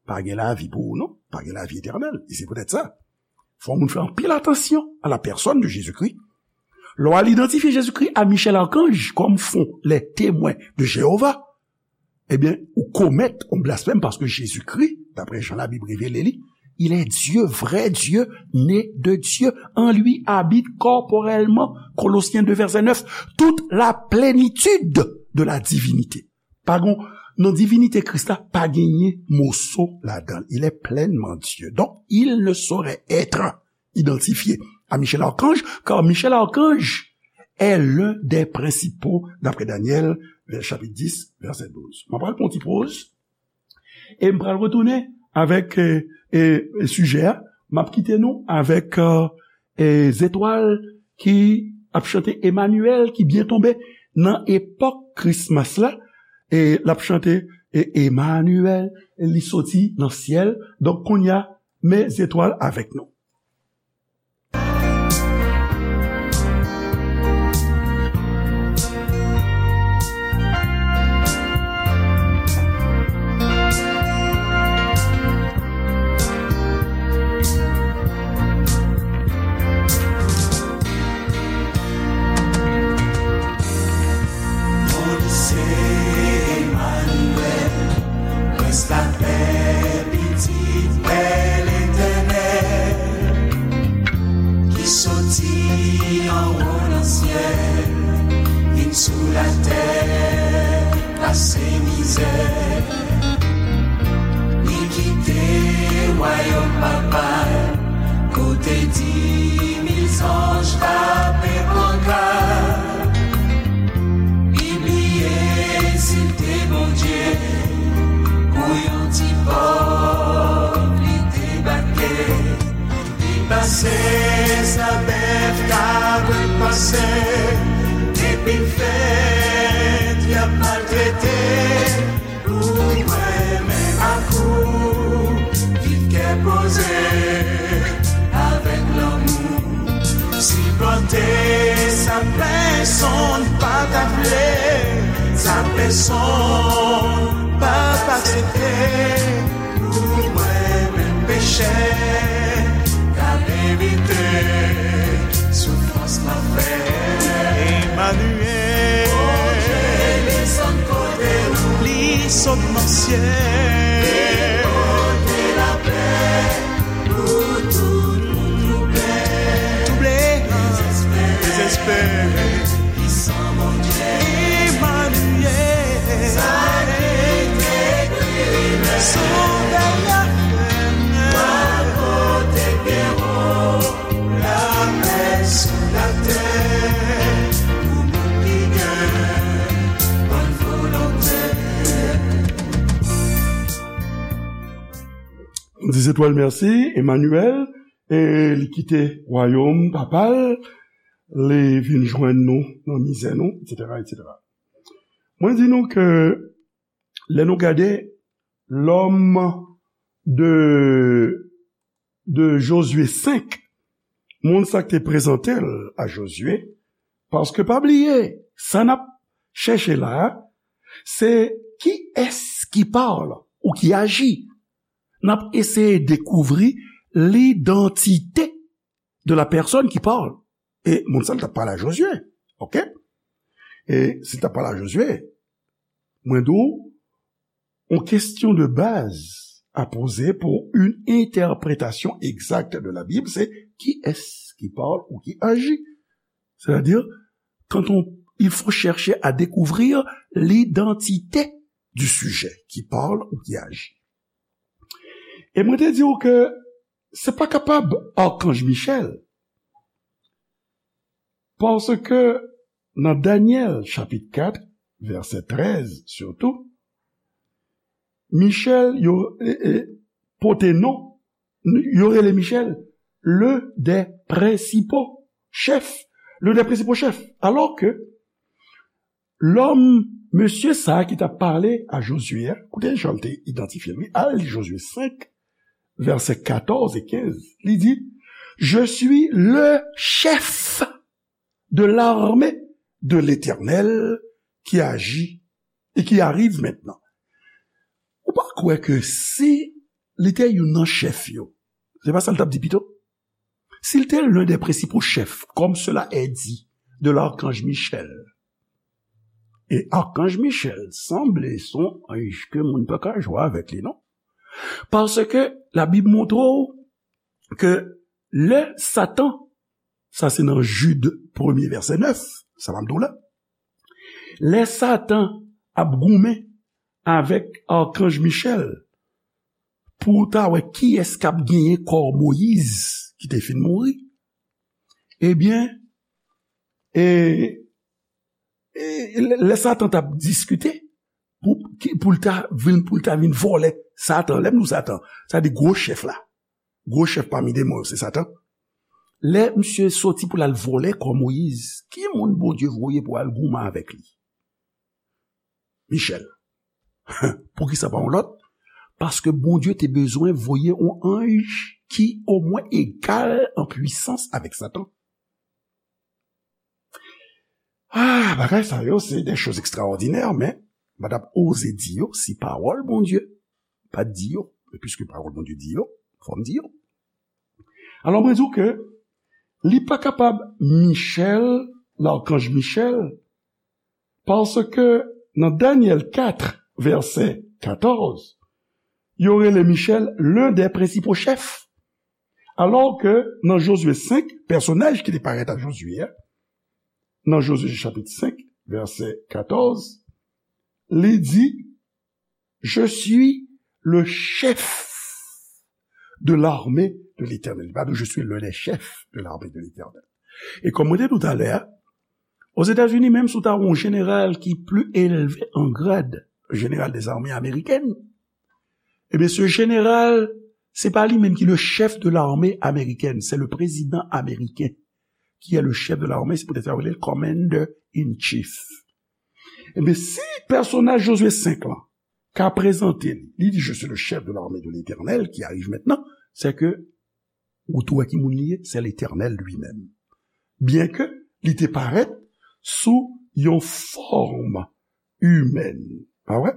pa gen lavi pou ou non, pa gen lavi etènèl. E se poutèt sa, fò moun fè anpil atansyon à la personne de Jésus-Christ. Lè w al idantifye Jezikri a Michel Archange, comme font les Témoins de Jéhovah, ebyen, ou komèt yon blasfèm paske Jezikri, d'après Jean Labib revele li, il est Dieu, vrai Dieu, né de Dieu. En lui habite corporellement, Colossiens deux verset neuf, toute la plénitude de la divinité. Pa gon, nan divinite Kris la, pa genyen moso ladan l. Il est pleinement Dieu. Donc, il ne saurait être identifié à Michel Archange, car Michel Archange est l'un des principaux, d'après Daniel, vè-, chapitre dix, verset douze. Mwen pral pran yon ti poz, e mwen pral retounen avèk, e, e, e sijè a. Mwen ap kite nou avèk, e, e zetwal ki ap chante Emmanuel, ki byen tonbe nan epòk Christmas la. E l ap chante, e, Emmanuel, e li soti nan syèl. Donk, kounye a, men zetwal avèk nou. Tèt y ap maltrete pou mwen, men ak ou, viv kè poze, avèk lanmou. Sipòte sa pèsonn pa ta vle, sa pèsonn p ap aksepte. Pou mwen menm pechè, k al evite soufrans lanfè. Emmanuel. Bondye desann kote nou. Li sot nan syèl. Li pote lapè pou tout moun twouble. Twouble. Dezespere. Dezespere. Emmanuel. Sa ki te ekri, Sovè a fè. Wa kote gen wo, lapè sou latè, pou moun ki gen bòn volonte. Nou di Zetwal mèsi, Emmanuel, e li kite wayòm papa l, li vin jwenn nou nan mizè nou, etsetera, etsetera. Mwen di nou ke lè nou gade lòm de, de Jozye senk, moun sa k te prezante l a Jozye, paske pa bliye, sa n ap chèche la a, se kiyès ki pale ou ki aji. N ap eseye dekouvri lidantite de la personne qui parle. E moun sa l t ap pale a Jozye. Oke? E si l t ap pale a Jozye, mwen di w, yon kesyon de baz a poze pour une interprétation exacte de la Bible, c'est qui est-ce qui parle ou qui agit? C'est-à-dire, quand on, il faut chercher à découvrir l'identité du sujet qui parle ou qui agit. E mwen te di w ke se pa kapab Akanj Michèl, paske nan Danyèl chapit kat, vèsè trèz sitou, Michèl, yo, e, e, pote non, yo rele Michèl le des principaux chefs, le des principaux chefs, alò ke lòm, mesye sa a ki t ap pale a Jozye a, koute jan l te idantifye l, wi, al li Jozye senk, vèsè katòz e kenz, li di, Je suis le chef de l'armée de l'Éternel qui agit et qui arrive maintenant. Ou pa kwè ke si li te youn nan chèf yo, se pa sa l t ap di pito? S'il était l'un des principaux chefs, comme cela est dit de l'archange Michel, e Akanj Michèl sanble se yon anj ke moun pa ka jwe avèk li, non? Paske Labib montre w ke lè Satan, sa se nan Jid premye vèsè nèf, sa m ap di w la, lè Satan ap goumen avèk Akanj Michèl pou ta wè kiyès k ap genyen kò Moyiz ki te fin mouri, ebyen, e, e, lè, lè Satan t ap diskite pou, ki, pou l ta vin, pou l ta vin vòlè, Satan, lè m di w Satan, sa di gwo chèf la, gwo chèf pami demon yo, se Satan. Lè misye soti pou l al vòlè kò Moyiz, ki moun Bondye voye pou al goumen avèk li? Michèl. Poukisa pa yon lòt? Paske Bondye te bezwen voye yon anj ki omwen egal an pwisans avèk Satan. Ah, bagay sa yo, se de choz ekstraòdinè, men m pa t ap oze di yo si pawòl Bondye pa t di yo. Men piske pawòl Bondye di yo, fò m di yo. Alò, mwen di w ke li pa kapab Michèl, lakanj Michèl, paske nan Danyèl kat, vèsè katòz, yo rele Michèl l'un des principaux chefs. Alò ke nan Jozye senk, pèsonaj ki te parèt a Jozye a, nan Jozye chapit senk, vèsè katòz, li di, Je suis le chef de l'armée de l'Éternel. Li pa di, Je suis l'un des chefs de l'armée de l'Éternel. E kòm mwen te di w talè a, Ozetazini, menm si w ta wè yon jeneral ki pli elve an grad, jeneral dèzame amerikèn, ebyen, se jeneral, se pa li menm ki le chef de l'armée américaine, c'est le président américain. qui est le chef de l'armée, se poutèt sa yo rele l Commander in Chief. Ebyen, si pèsonaj Jozye senk lan ka prezante li, li di, "Je suis le chef de l'armée de l'Éternel qui arrive maintenant," se ke ou tou wè ki moun li ye, se Letènèl li menm. Byenke li te parèt sou yon fòm imèn, pa vre?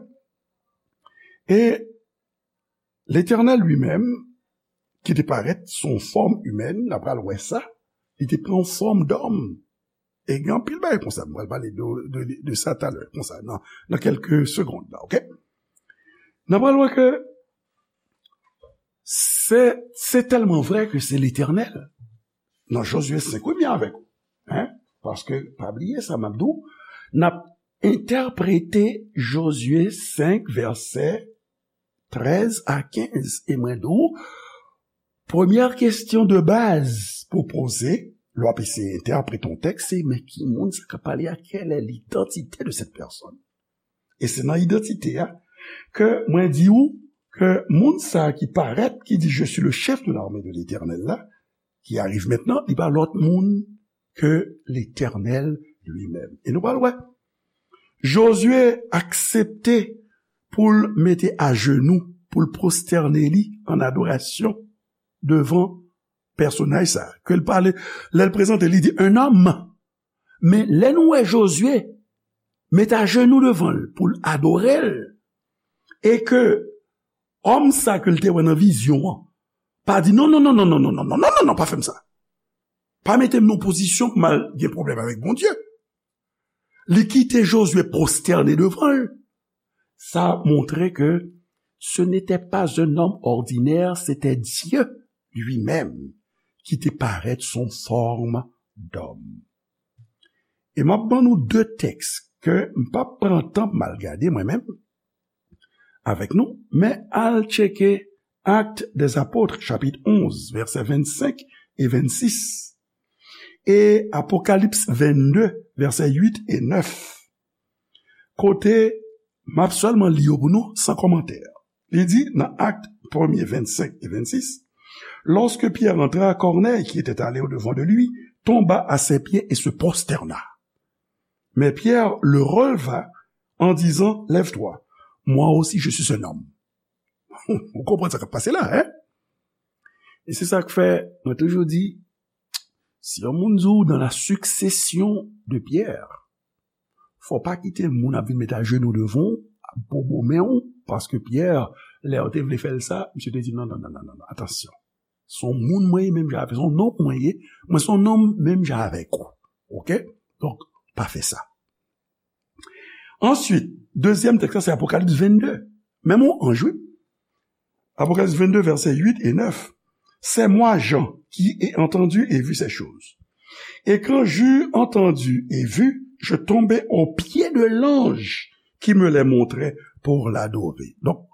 E Letènèl li menm, ki te parèt sou yon fòm imèn, n a pral wè sa, li te pran yon fòm dòm. E gen anpil bagay konsa, m pral pale de, de, de sa talè, konsa, nan, nan kèlke segonn la, oke? N a pral wè ke se, se tèlman vre ke se Letènèl. Nan Jozye senk, wi, m avèk ou. Hein? Paske, pa bliye sa, m ap di w, n ap entèprete Jozye senk, vèsè trèz a kenz. E mwen di w, premyè kesyon de baz pou poze, lè w ap eseye entèprete yon tèks, se, men ki moun sa k ap pale a? Quelle est l'identité de cette personne? E se nan idantite a ke mwen di w ke moun sa ki parèt, ki di, "Je suis le chef de l'armée de l'Éternel" la, qui arrive maintenant, li pa lòt moun ke Letènèl li menm. E nou pral wè. Jozye aksepte pou l mete ajenou, pou l pwostène li an adorasyon devan pèsonaj sa. Ke l pale, lè l prezante, li di, "Un homme." Men lè nou wè Jozye met ajenou devan l pou l adore l, e ke òm sa ke l te wè nan vizyon an pa di, "Non, non, non, non, pa fè m sa. Pa mete m nan pozisyon pou m al gen pwoblèm avèk Bondye." Li kite Jozye pwostène devan l. Sa montre ke ce n'était pas un homme ordinaire, c'était Dieu lui-même qui te parèt sou fòm dòm. E m ap ban nou de tèks ke m p ap pran tan pou m al gade mwen menm avèk nou, men al tcheke Actes des Apôtres, chapit onz, vèsè vennsenk e vennsis, e Apokalips vennde, vèsè uit e nèf, kote m ap sèlman li yo pou nou, san kòmantè. Li di nan Actes premier, vingt-cinq et vingt-six, "Lorsque Pierre entra, Corneille, qui était allé au-devant de lui, tomba à ses pieds et se prosterna. Mais Pierre le releva en disant, 'Lève-toi, moi aussi je suis un homme.'" Ou konprann sa k ap pase la, hein? E se sa k fè, mwen toujou di, si yon moun di w dans la succession de Pierre, fò w pa kite moun ap vin met ajenou devan w, ap bobo men w, paske Pyè, lè yo te vle fè l sa, misye te di, "Non, non, non, non, non, non, atansyon. Se yon moun mwen ye menm jan avè w, se yon nonm mwen ye, mwen se yon nonm menm jan avèk ou." Oke? Donk, pa fè sa. Answit, dezyèm tèks la, se Apokalips vennde. Menm yon anj, wi. Apokalips vennde, vèsè uit e nèf. "C'est moi, Jean, qui ai entendu et vu ces choses. Et quand j'eus entendu et vu, je tombai aux pieds de l'ange qui me les montrait pour l'adorer." Donk,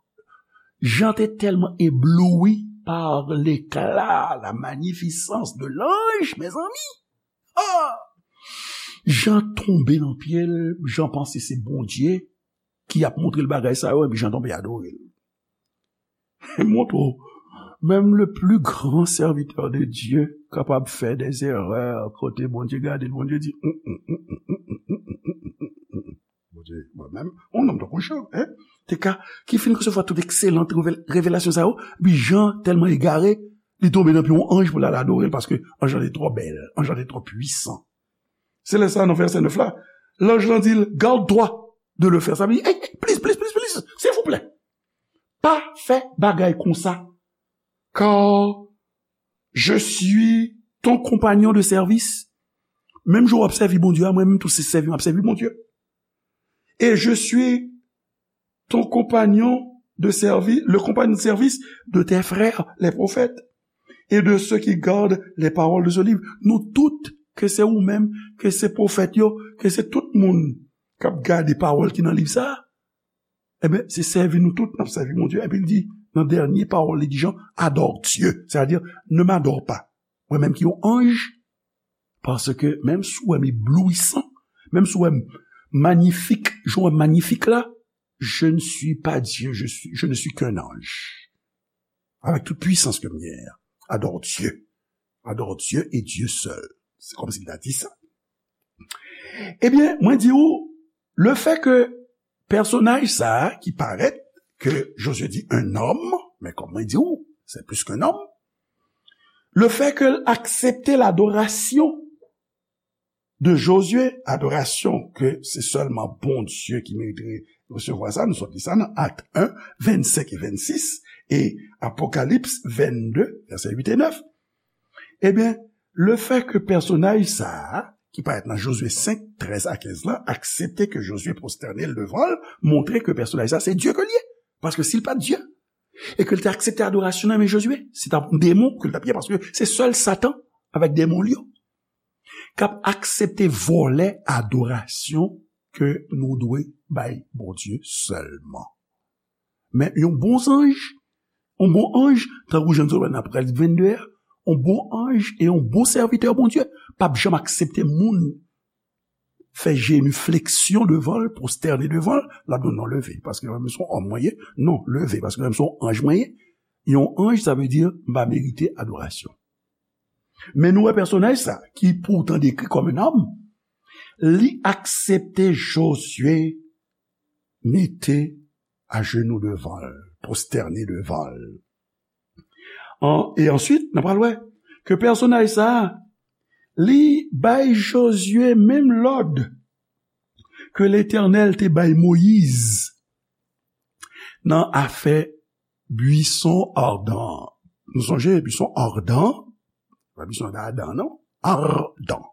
Jan te tèlman ebloui par l'éclat, la magnificence de l'ange, mezanmi. Ah! Jan tonbe nan pye l, Jan panse se Bondye ki ap montre l bagay sa yo, epi Jan tonbe adore l. Montre w, menm le plus grand serviteur de Dieu kapab fè des erreurs, kote Bondye gade l, Bondye di, "Mm, mm, mm, mm, mm, mm, mm, mm, mm, mm, mm, mm." Bondye, mwen menm, yon nonm tankou Jan, hein, te ka, ki fin resevwa tout ekselan revel-, revelasyon sa yo, epi Jan tèlman egare, li tonbe nan pye yon anj pou l al adore l, paske anj lan te twò bèl, anj lan te twò pwisan. Se lè sa, nan vèsè nèf la, lanj lan di l, "Garde-toi de le faire." Sa vle di, "Hey, hey, please, please, please, please, silvouplè, pa fè bagay konsa, car je suis ton compagnon de service." Menm jan w ap sèvi Bondye a, mwen menm tou se sèvi m ap sèvi Bondye. "Et je suis ton compagnon de servi-, le compagnon de service de tes frères, les prophètes, et de ceux qui gardent les paroles de ce livre." Nou tout, ke se ou menm, ke se pwofèt yo, ke se tout moun k ap gade pawòl ki nan liv sa a, ebyen, se sèvi nou tout n ap sèvi Bondye. Epi l di, nan dènye pawòl li di Jan, "Adore Dieu." Sètadi, "Ne m'adore pas, mwen menm ki yon anj, paske menm si w wè m eblouisan, menm si w wè m manyifik, jan w wè m manyifik la, je ne suis pas Dieu, je suis, je ne suis qu'un ange. Avec toute puissance ke m genyen an, adore Dieu. Adore Dieu et Dieu seul." Se kòmsi l ta di sa. Ebyen, mwen di w, le fè ke pèsonaj sa a ki parèt, ke Jozye di un homme, men kòm mwen di w, c'est plus qu'un homme, le fè ke l aksepte ladorasyon de Jozye, adorasyon ke se sèlman Bondye ki merite resevwa sa, nou sot li sa nan Akt un, vennsenk e vennsis, e Apokalips vennde, vèsè uit e nèf. Ebyen, le fè ke pèsonaj sa a, ki parèt nan Jozye senk, trèz a kenz la, aksepte ke Jozye pwostène l devan l, montre ke pèsonaj sa a se Dye ke l ye. Paske si l pa t Dye, e ke l te aksepte adorasyon nan men Jozye, se t ap yon demon ke l t ap ye, paske se sèl Satan avèk demon l yo k ap aksepte vòlè adorasyon ke nou dwe bay Bondye sèlman. Men yon bon zanj, yon bon anj, tankou jan nou wè nan Apokalips vennde a, yon bon anj e yon bon sèvitè Bondye p ap janm aksepte moun fè jenifleksyon devan l, pwostène devan l, l ap di w non, leve, paske mwen menm se yon òm mwen ye, non, leve, paske mwen menm se yon anj mwen ye. Yon anj, sa vle di m pa merite adorasyon. Men nou wè pèsonaj sa, ki poutan dekri kòm un homme, li aksepte Jozye mete ajenou devan l, pwostène devan l. An, e answit, n a pral wè ke pèsonaj sa a, li bay Jozye menm lòd ke Letènèl te bay Moyiz nan afè bwison adan an. Nou sonje, bwison adan, pa bwison adan, non? Adan.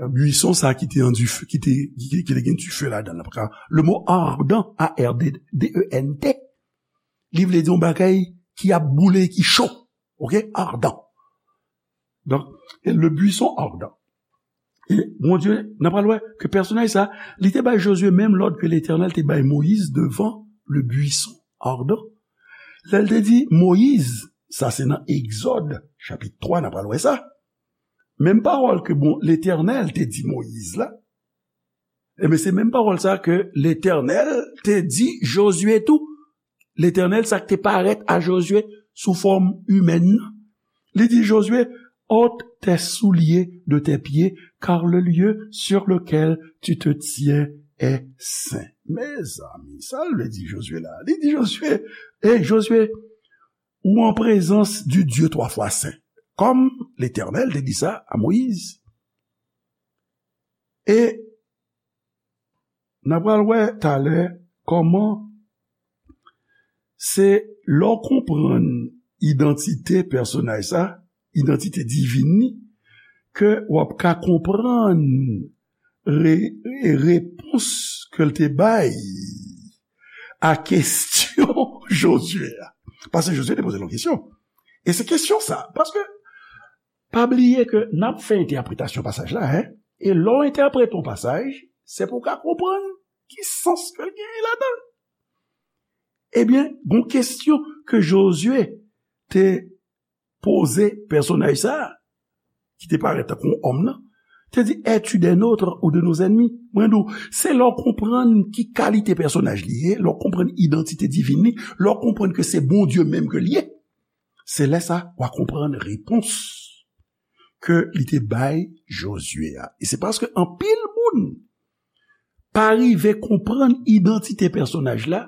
Bwison sa ki te an dife, ki te, ki, ki te gen dife ladan l. Paske le mo ardent, A R D E N T, li vle di yon bagay ki ap boule, ki cho. Oke? Ardent. Donk, e le buisson ardent. E Bondye, n a pral wè ke pèsonaj sa, li te bay Jozye menm lòd ke Letènèl te bay Moyiz devan le buisson ardent. Lè l te di Moyiz, sa se nan Egzòd, chapit twa, n a pral wè sa. Menm pawòl ke bon, Letènèl te di Moyiz la, ebyen, se menm pawòl sa ke Letènèl te di Jozye tou. Letènèl, sa k te parèt a Jozye sou fòm imèn nan. Li di Jozye, ôte tes souliers de tes pieds, car le lieu sur lequel tu te tiens est saint. Mezanmi, sa l vle di Jozye la? Li di Jozye, ey, Jozye, ou an prezans du Dieu twa fwa sen. Kòm Letènèl te di sa a Moyiz. E n a pral wè talè kòman se lè w konprann idantite pèsonaj sa, idantite divin li, ke w ap ka konprann re-, repons ke l te bay a kesyon Jozye a. Paske Jozye te poze l yon kesyon. E se kesyon sa. Paske, pa bliye ke n ap fè entèpretasyon pasaj la, en. E lè w entèprete yon pasaj, se pou w ka konprann ki sans ke l genyen ladan l. Ebyen, gon kesyon ke Jozye te poze pèsonaj sa a, ki te parèt tankou yon òm nan, te di, es-tu des nôtres ou de nos ennemis? Mwen di w, se lè w konprann ki kalite pèsonaj li ye, lè w konprann idantite divin li, lè w konprann ke se Bondye menm ke l ye, se lè sa w a konprann repons ke li te bay Jozye a. E se paske anpil moun pa rive konprann idantite pèsonaj la,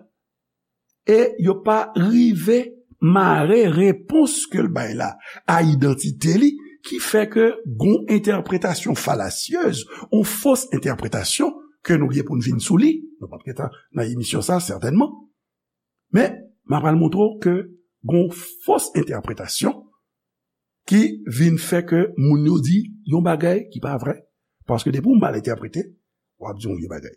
e yo pa rive mare repons ke l bay la a idantite li, ki fè ke gon entèpretasyon falasyez, yon fos entèpretasyon ke nou gen pou n vin sou li, nou p ap gentan nan emisyon sa, sètènman. Men, m ap pral montre w ke gon fos entèpretasyon ki vin fè ke moun yo di yon bagay ki pa vrè. Paske depi w mal entèprete, w ap di yon vye bagay.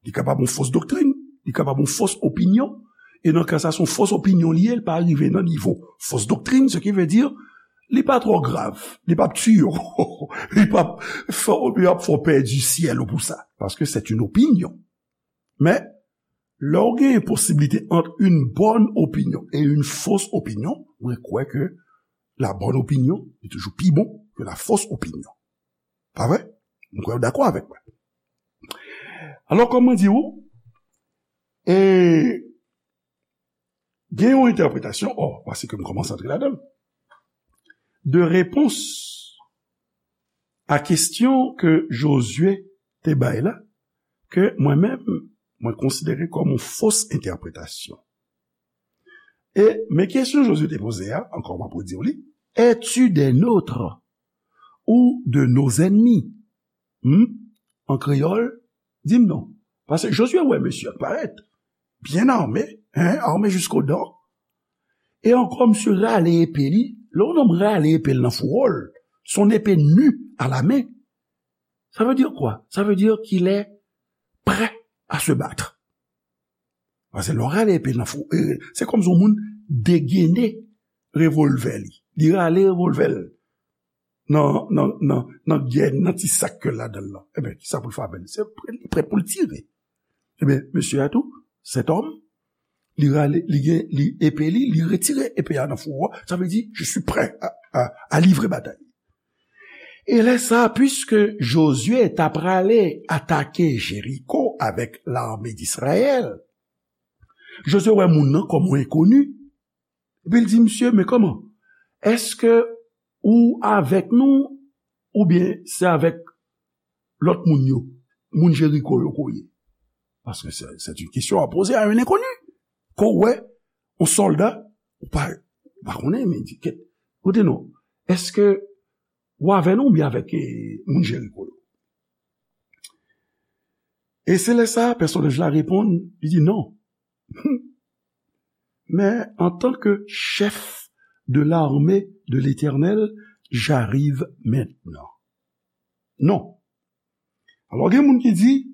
Li kapab yon fos doktrin, li kapab yon fos opinyon. E nan ka sa, se yon fos opinyon li ye, li pa rive nan nivo fos doktrin, se ki vle di, li pa twò grav, li p ap tiye w, li p ap fè, li p ap fè w pèdi syèl ou pou sa, paske c'est une opinion. Men, lè w gen posiblite ant une bonne opinion et une fausse opinion, mwen kwè ke la bonne opinion est toujours plus bon que la fausse opinion. Pa vre? Mwen kwè w dakò avèk mwen. Alò, kòm mwen di w, e, gen yon entèpretasyon, o, paske m kòmanse antre ladan l, de repons a kesyon ke Jozye te bay la, ke mwen menm, mwen konsidere kòm yon fos entèpretasyon. E, men kesyon Jozye te poze a, ankò m ap redi w li, es-tu des nôtres ou de nos ennemis? Hmm? An kreyòl, di m non. Paske Jozye wè mesye a parèt, byen ame, hein, armé jusqu'aux dents. E ankò, misye rale epe li. Lè yon nonm rale epe l nan fouwo l, son épée nue à la main. Ça veut dire quoi? Ça veut dire qu'il est prêt à se battre. Paske lè w rale epe nan fou, e, se kòmsi yon moun degene revòlvè li. Li rale revòlvè l nan, nan, nan, nan gè, nan ti sak ke l ladan l lan. Ebyen, kisa pou l fè avè l? Se prè, li prè pou l tire. Ebyen, mesye a tou, cet homme, li rale, li gen, li epe li, li retire epe a nan fouwo a. Sa vle di, je suis prêt à, à, à livrer bataille. E lè sa, puiske Jozye ta prale atake Jeriko avèk lame d Izrayèl, Jozye wè moun nan kòm yon enkoni. Epi l di, "Mesye, men kòman? Èske ou avèk nou oubyen se avèk lòt moun yo, moun Jeriko yo ke w ye?" Paske se, se yon kesyon a poze a yon enkoni. Ke w wè yon sòlda, ou pa, ou pa konnen, men di, "Kèt, koute non, èske ou avè nou oubyen avèk, eh, moun Jeriko yo?" E se lè sa, pèsonaj la reponn, li di, "Non. Mais en tant que chef de l'armée de l'Éternel, j'arrive maintenant." Non. Alò, gen moun ki di,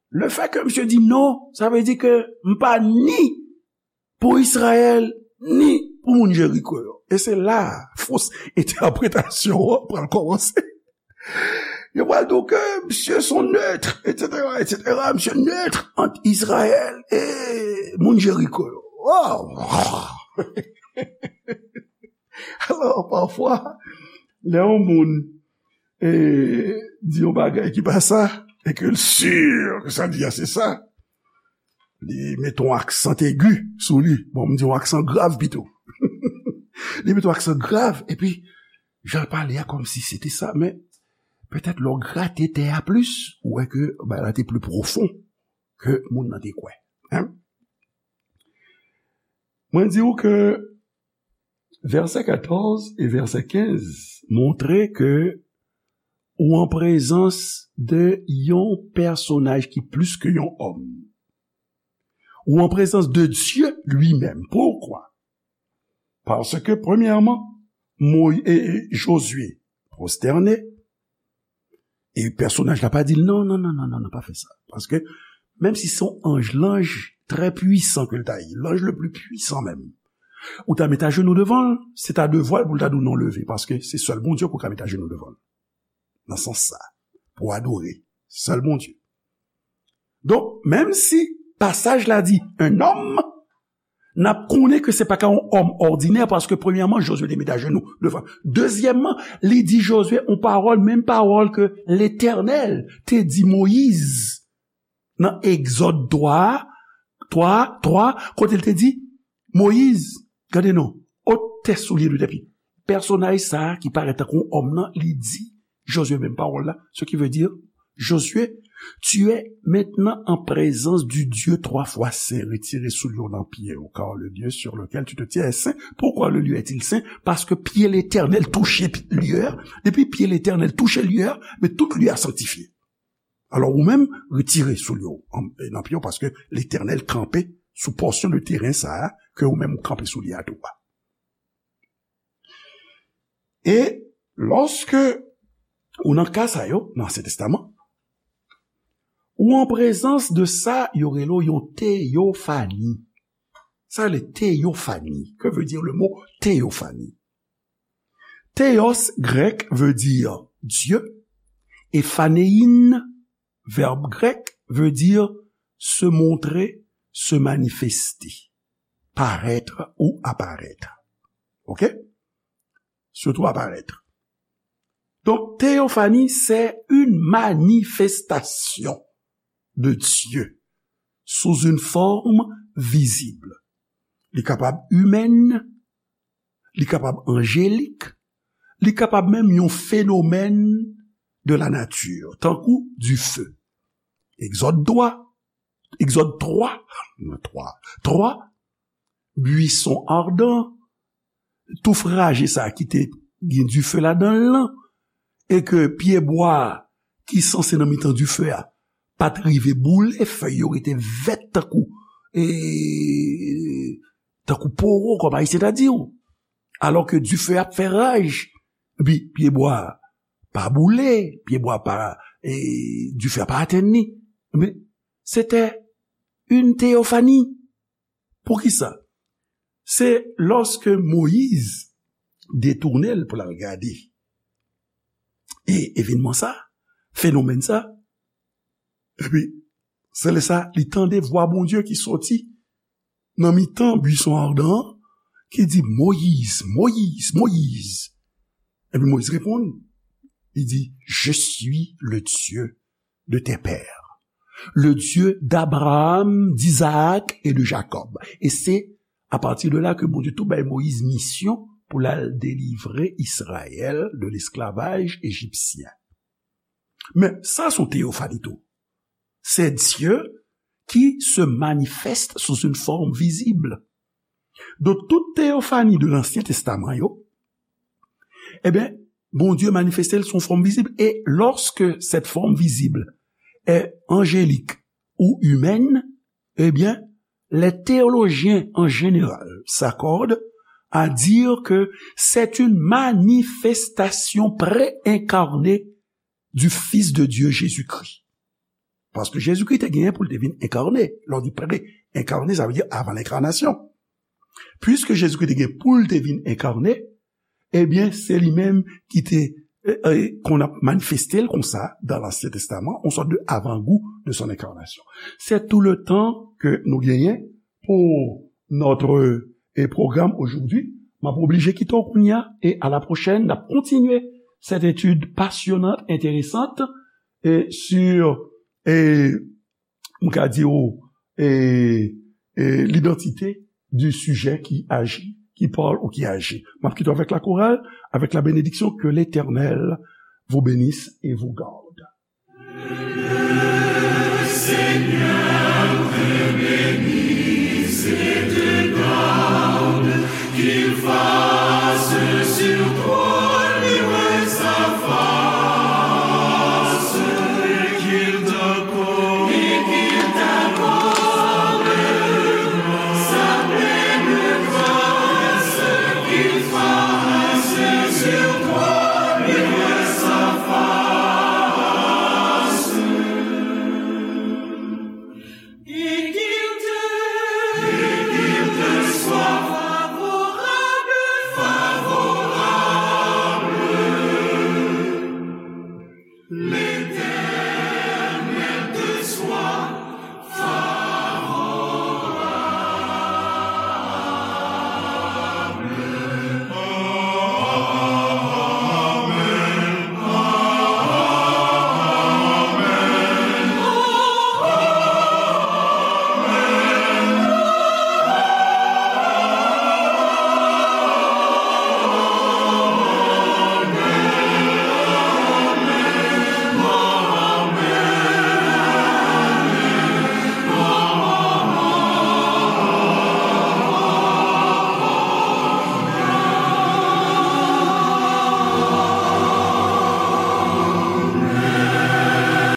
le fait que misye di non, sa vle di ke m pa ni pou Izrayèl, ni pou moun Jeriko yo. E se la fos entèpretasyon an pral kòmanse. Yo pral di w ke misye se yon neutre, et cetera, et cetera. Misye neutre ant Izrayèl e moun Jeriko yo. Oh! Alò, pafwa, lè yon moun, e, di yon bagay ki pa sa, e ke l si ke sa l di a se sa, li mete yon aksan egi sou li. Bon, m di yon aksan grav pito. Li mete yon aksan grav, epi jan l pale a kòmsi se te sa, men petèt lè w grate tè a plis, ou wè ke bagay la te pli pwofon ke moun nan te kwè. Hein? Mwen di w ke vèsè katòz e vèsè kenz montre ke ou an prezans de yon pèsonaj ki plis ke yon òm. Ou an prezans de Dye li menm. Poukwa? Paske, premyèman, Moy-, e, e, Jozye pwostène, e pèsonaj la pa di l, "Non, non, non, non, non, non, pa fè sa." Paske, menm si se yon anj, lanj trè pwisan ke l ta ye, l'ange le plus puissant menm, ou ta met ajenou devan l, se ta devwa l pou l ta di w, "Non, leve," paske se sèl Bondye ke w ka met ajenou devan l. Nan sans sa, pou adore sèl Bondye. Donk, menm si pasaj la di, un homme, n ap konnen ke se pa ka yon òm òdinè, paske premyèman, Jozye te met ajenou devan. Dezyèmman, li di Jozye yon pawòl, menm pawòl ke Letènèl te di Moyiz nan Egzòd twa, twa, twa, kote l te di, Moyiz, gade non, ôte tes souliers de tes pieds. Pèsonaj sa a ki parèt tankou yon òm nan, li di Jozye menm pawòl la, ce qui veut dire, Josué, tu es maintenant en présence du Dieu trois fois saint. Retire soulye w nan pye w, car le lieu sur lequel tu te tiens est saint. Pourquoi le lieu est-il saint? Paske pye Letènèl touche pi-, lye a. Depi pye Letènèl touche lye a, men tout lye a sanktifye. Alò, ou menm, retire soulye w an, nan pye w, paske Letènèl kanpe sou pòsyon de teren sa a, ke ou menm ou kanpe sou li a tou a. E lòske ou nan ka sa yo, nan Ansyen Testaman, ou an prezans de sa yo rele w yon teyofani. Sa rele teyofani. Que veut dire le mot théophanie? Theos, grèk, veut dire Dieu, et phanein, verbe grec, veut dire se montrer, se manifester, paraître ou apparaître. OK? Surtout apparaître. Donc, théophanie, c'est une manifestation de Dieu sous une forme visible. Li kapab imèn, li kapab anjelik, li kapab menm yon fenomèn de la nature, tankou dife. Egzòd twa, Egzòd twa, twa, twa, bwison ardan, touf raje sa ki te gen dife ladan l lan, e ke pyebwa ki sanse nan mitan dife a pa t rive boule, fèy yo rete vèt tankou, e, tankou powo, kòm Ayisyen ta di w. Alò ke dife a ap fè raj, epi pyebwa a pa boule, pyebwa a pa, e, dife a pa atenn li. Men, se te yon teyofani. Poukisa? Se lòske Moyiz detounen l pou l al gade e evènman sa, fenomèn sa, epi se lè sa li tande vwa Bondye ki soti nan mitan bwison adan an, ki di, "Moyiz, Moyiz, Moyiz." Epi Moyiz reponn, li di, "Je suis le Dieu de tes pères, le Dieu d'Abraham, d'Isaac et de Jacob." E se apati de la ke Bondye tou bay Moyiz misyon pou l al delivre Izrayèl de lesklavaj ejipsyen. Men, sa se yon teyofani tou. C'est Dieu qui se manifeste sous une forme visible. Donk, tout teyofani de Lansyen Testaman yo, ebyen, Bondye manifeste l sou yon fòm vizib. Et lorsque cette forme visible est angélique ou humaine, eh bien, les théologiens en général s'accordent à dire que c'est une manifestation préincarnée du Fils de Dieu Jésus-Christ. Paske Jezikri te genyen pou l te vin enkane. Lè w di pre-enkane, sa vle di avan lenkanasyon. Piske Jezikri te gen pou l te vin enkane, ebyen, se li menm ki te, e, e, konn ap manifeste l konsa dans l'Ancien Testament, yon sòt de avant-goût de son incarnation. C'est tout le temps que nous gagnons pour notre, e, programme aujourd'hui. M ap oblije kite w kounye a, e à la prochaine, n ap kontinye cette étude passionnante, intéressante, e sur, e, m ka di w, e, e, l'identité du sujet qui agit, qui parle ou qui agit. M ap kite w avec la chorale, avec la bénédiction, que l'Éternel vous bénisse et vous garde. Le Seigneur te bénisse et te garde, qu'il fasse sur toi luire sa face, et qu'il t'accorde, et qu'il t'accorde sa pleine grâce, qu'il fasse sur toi luire sa face.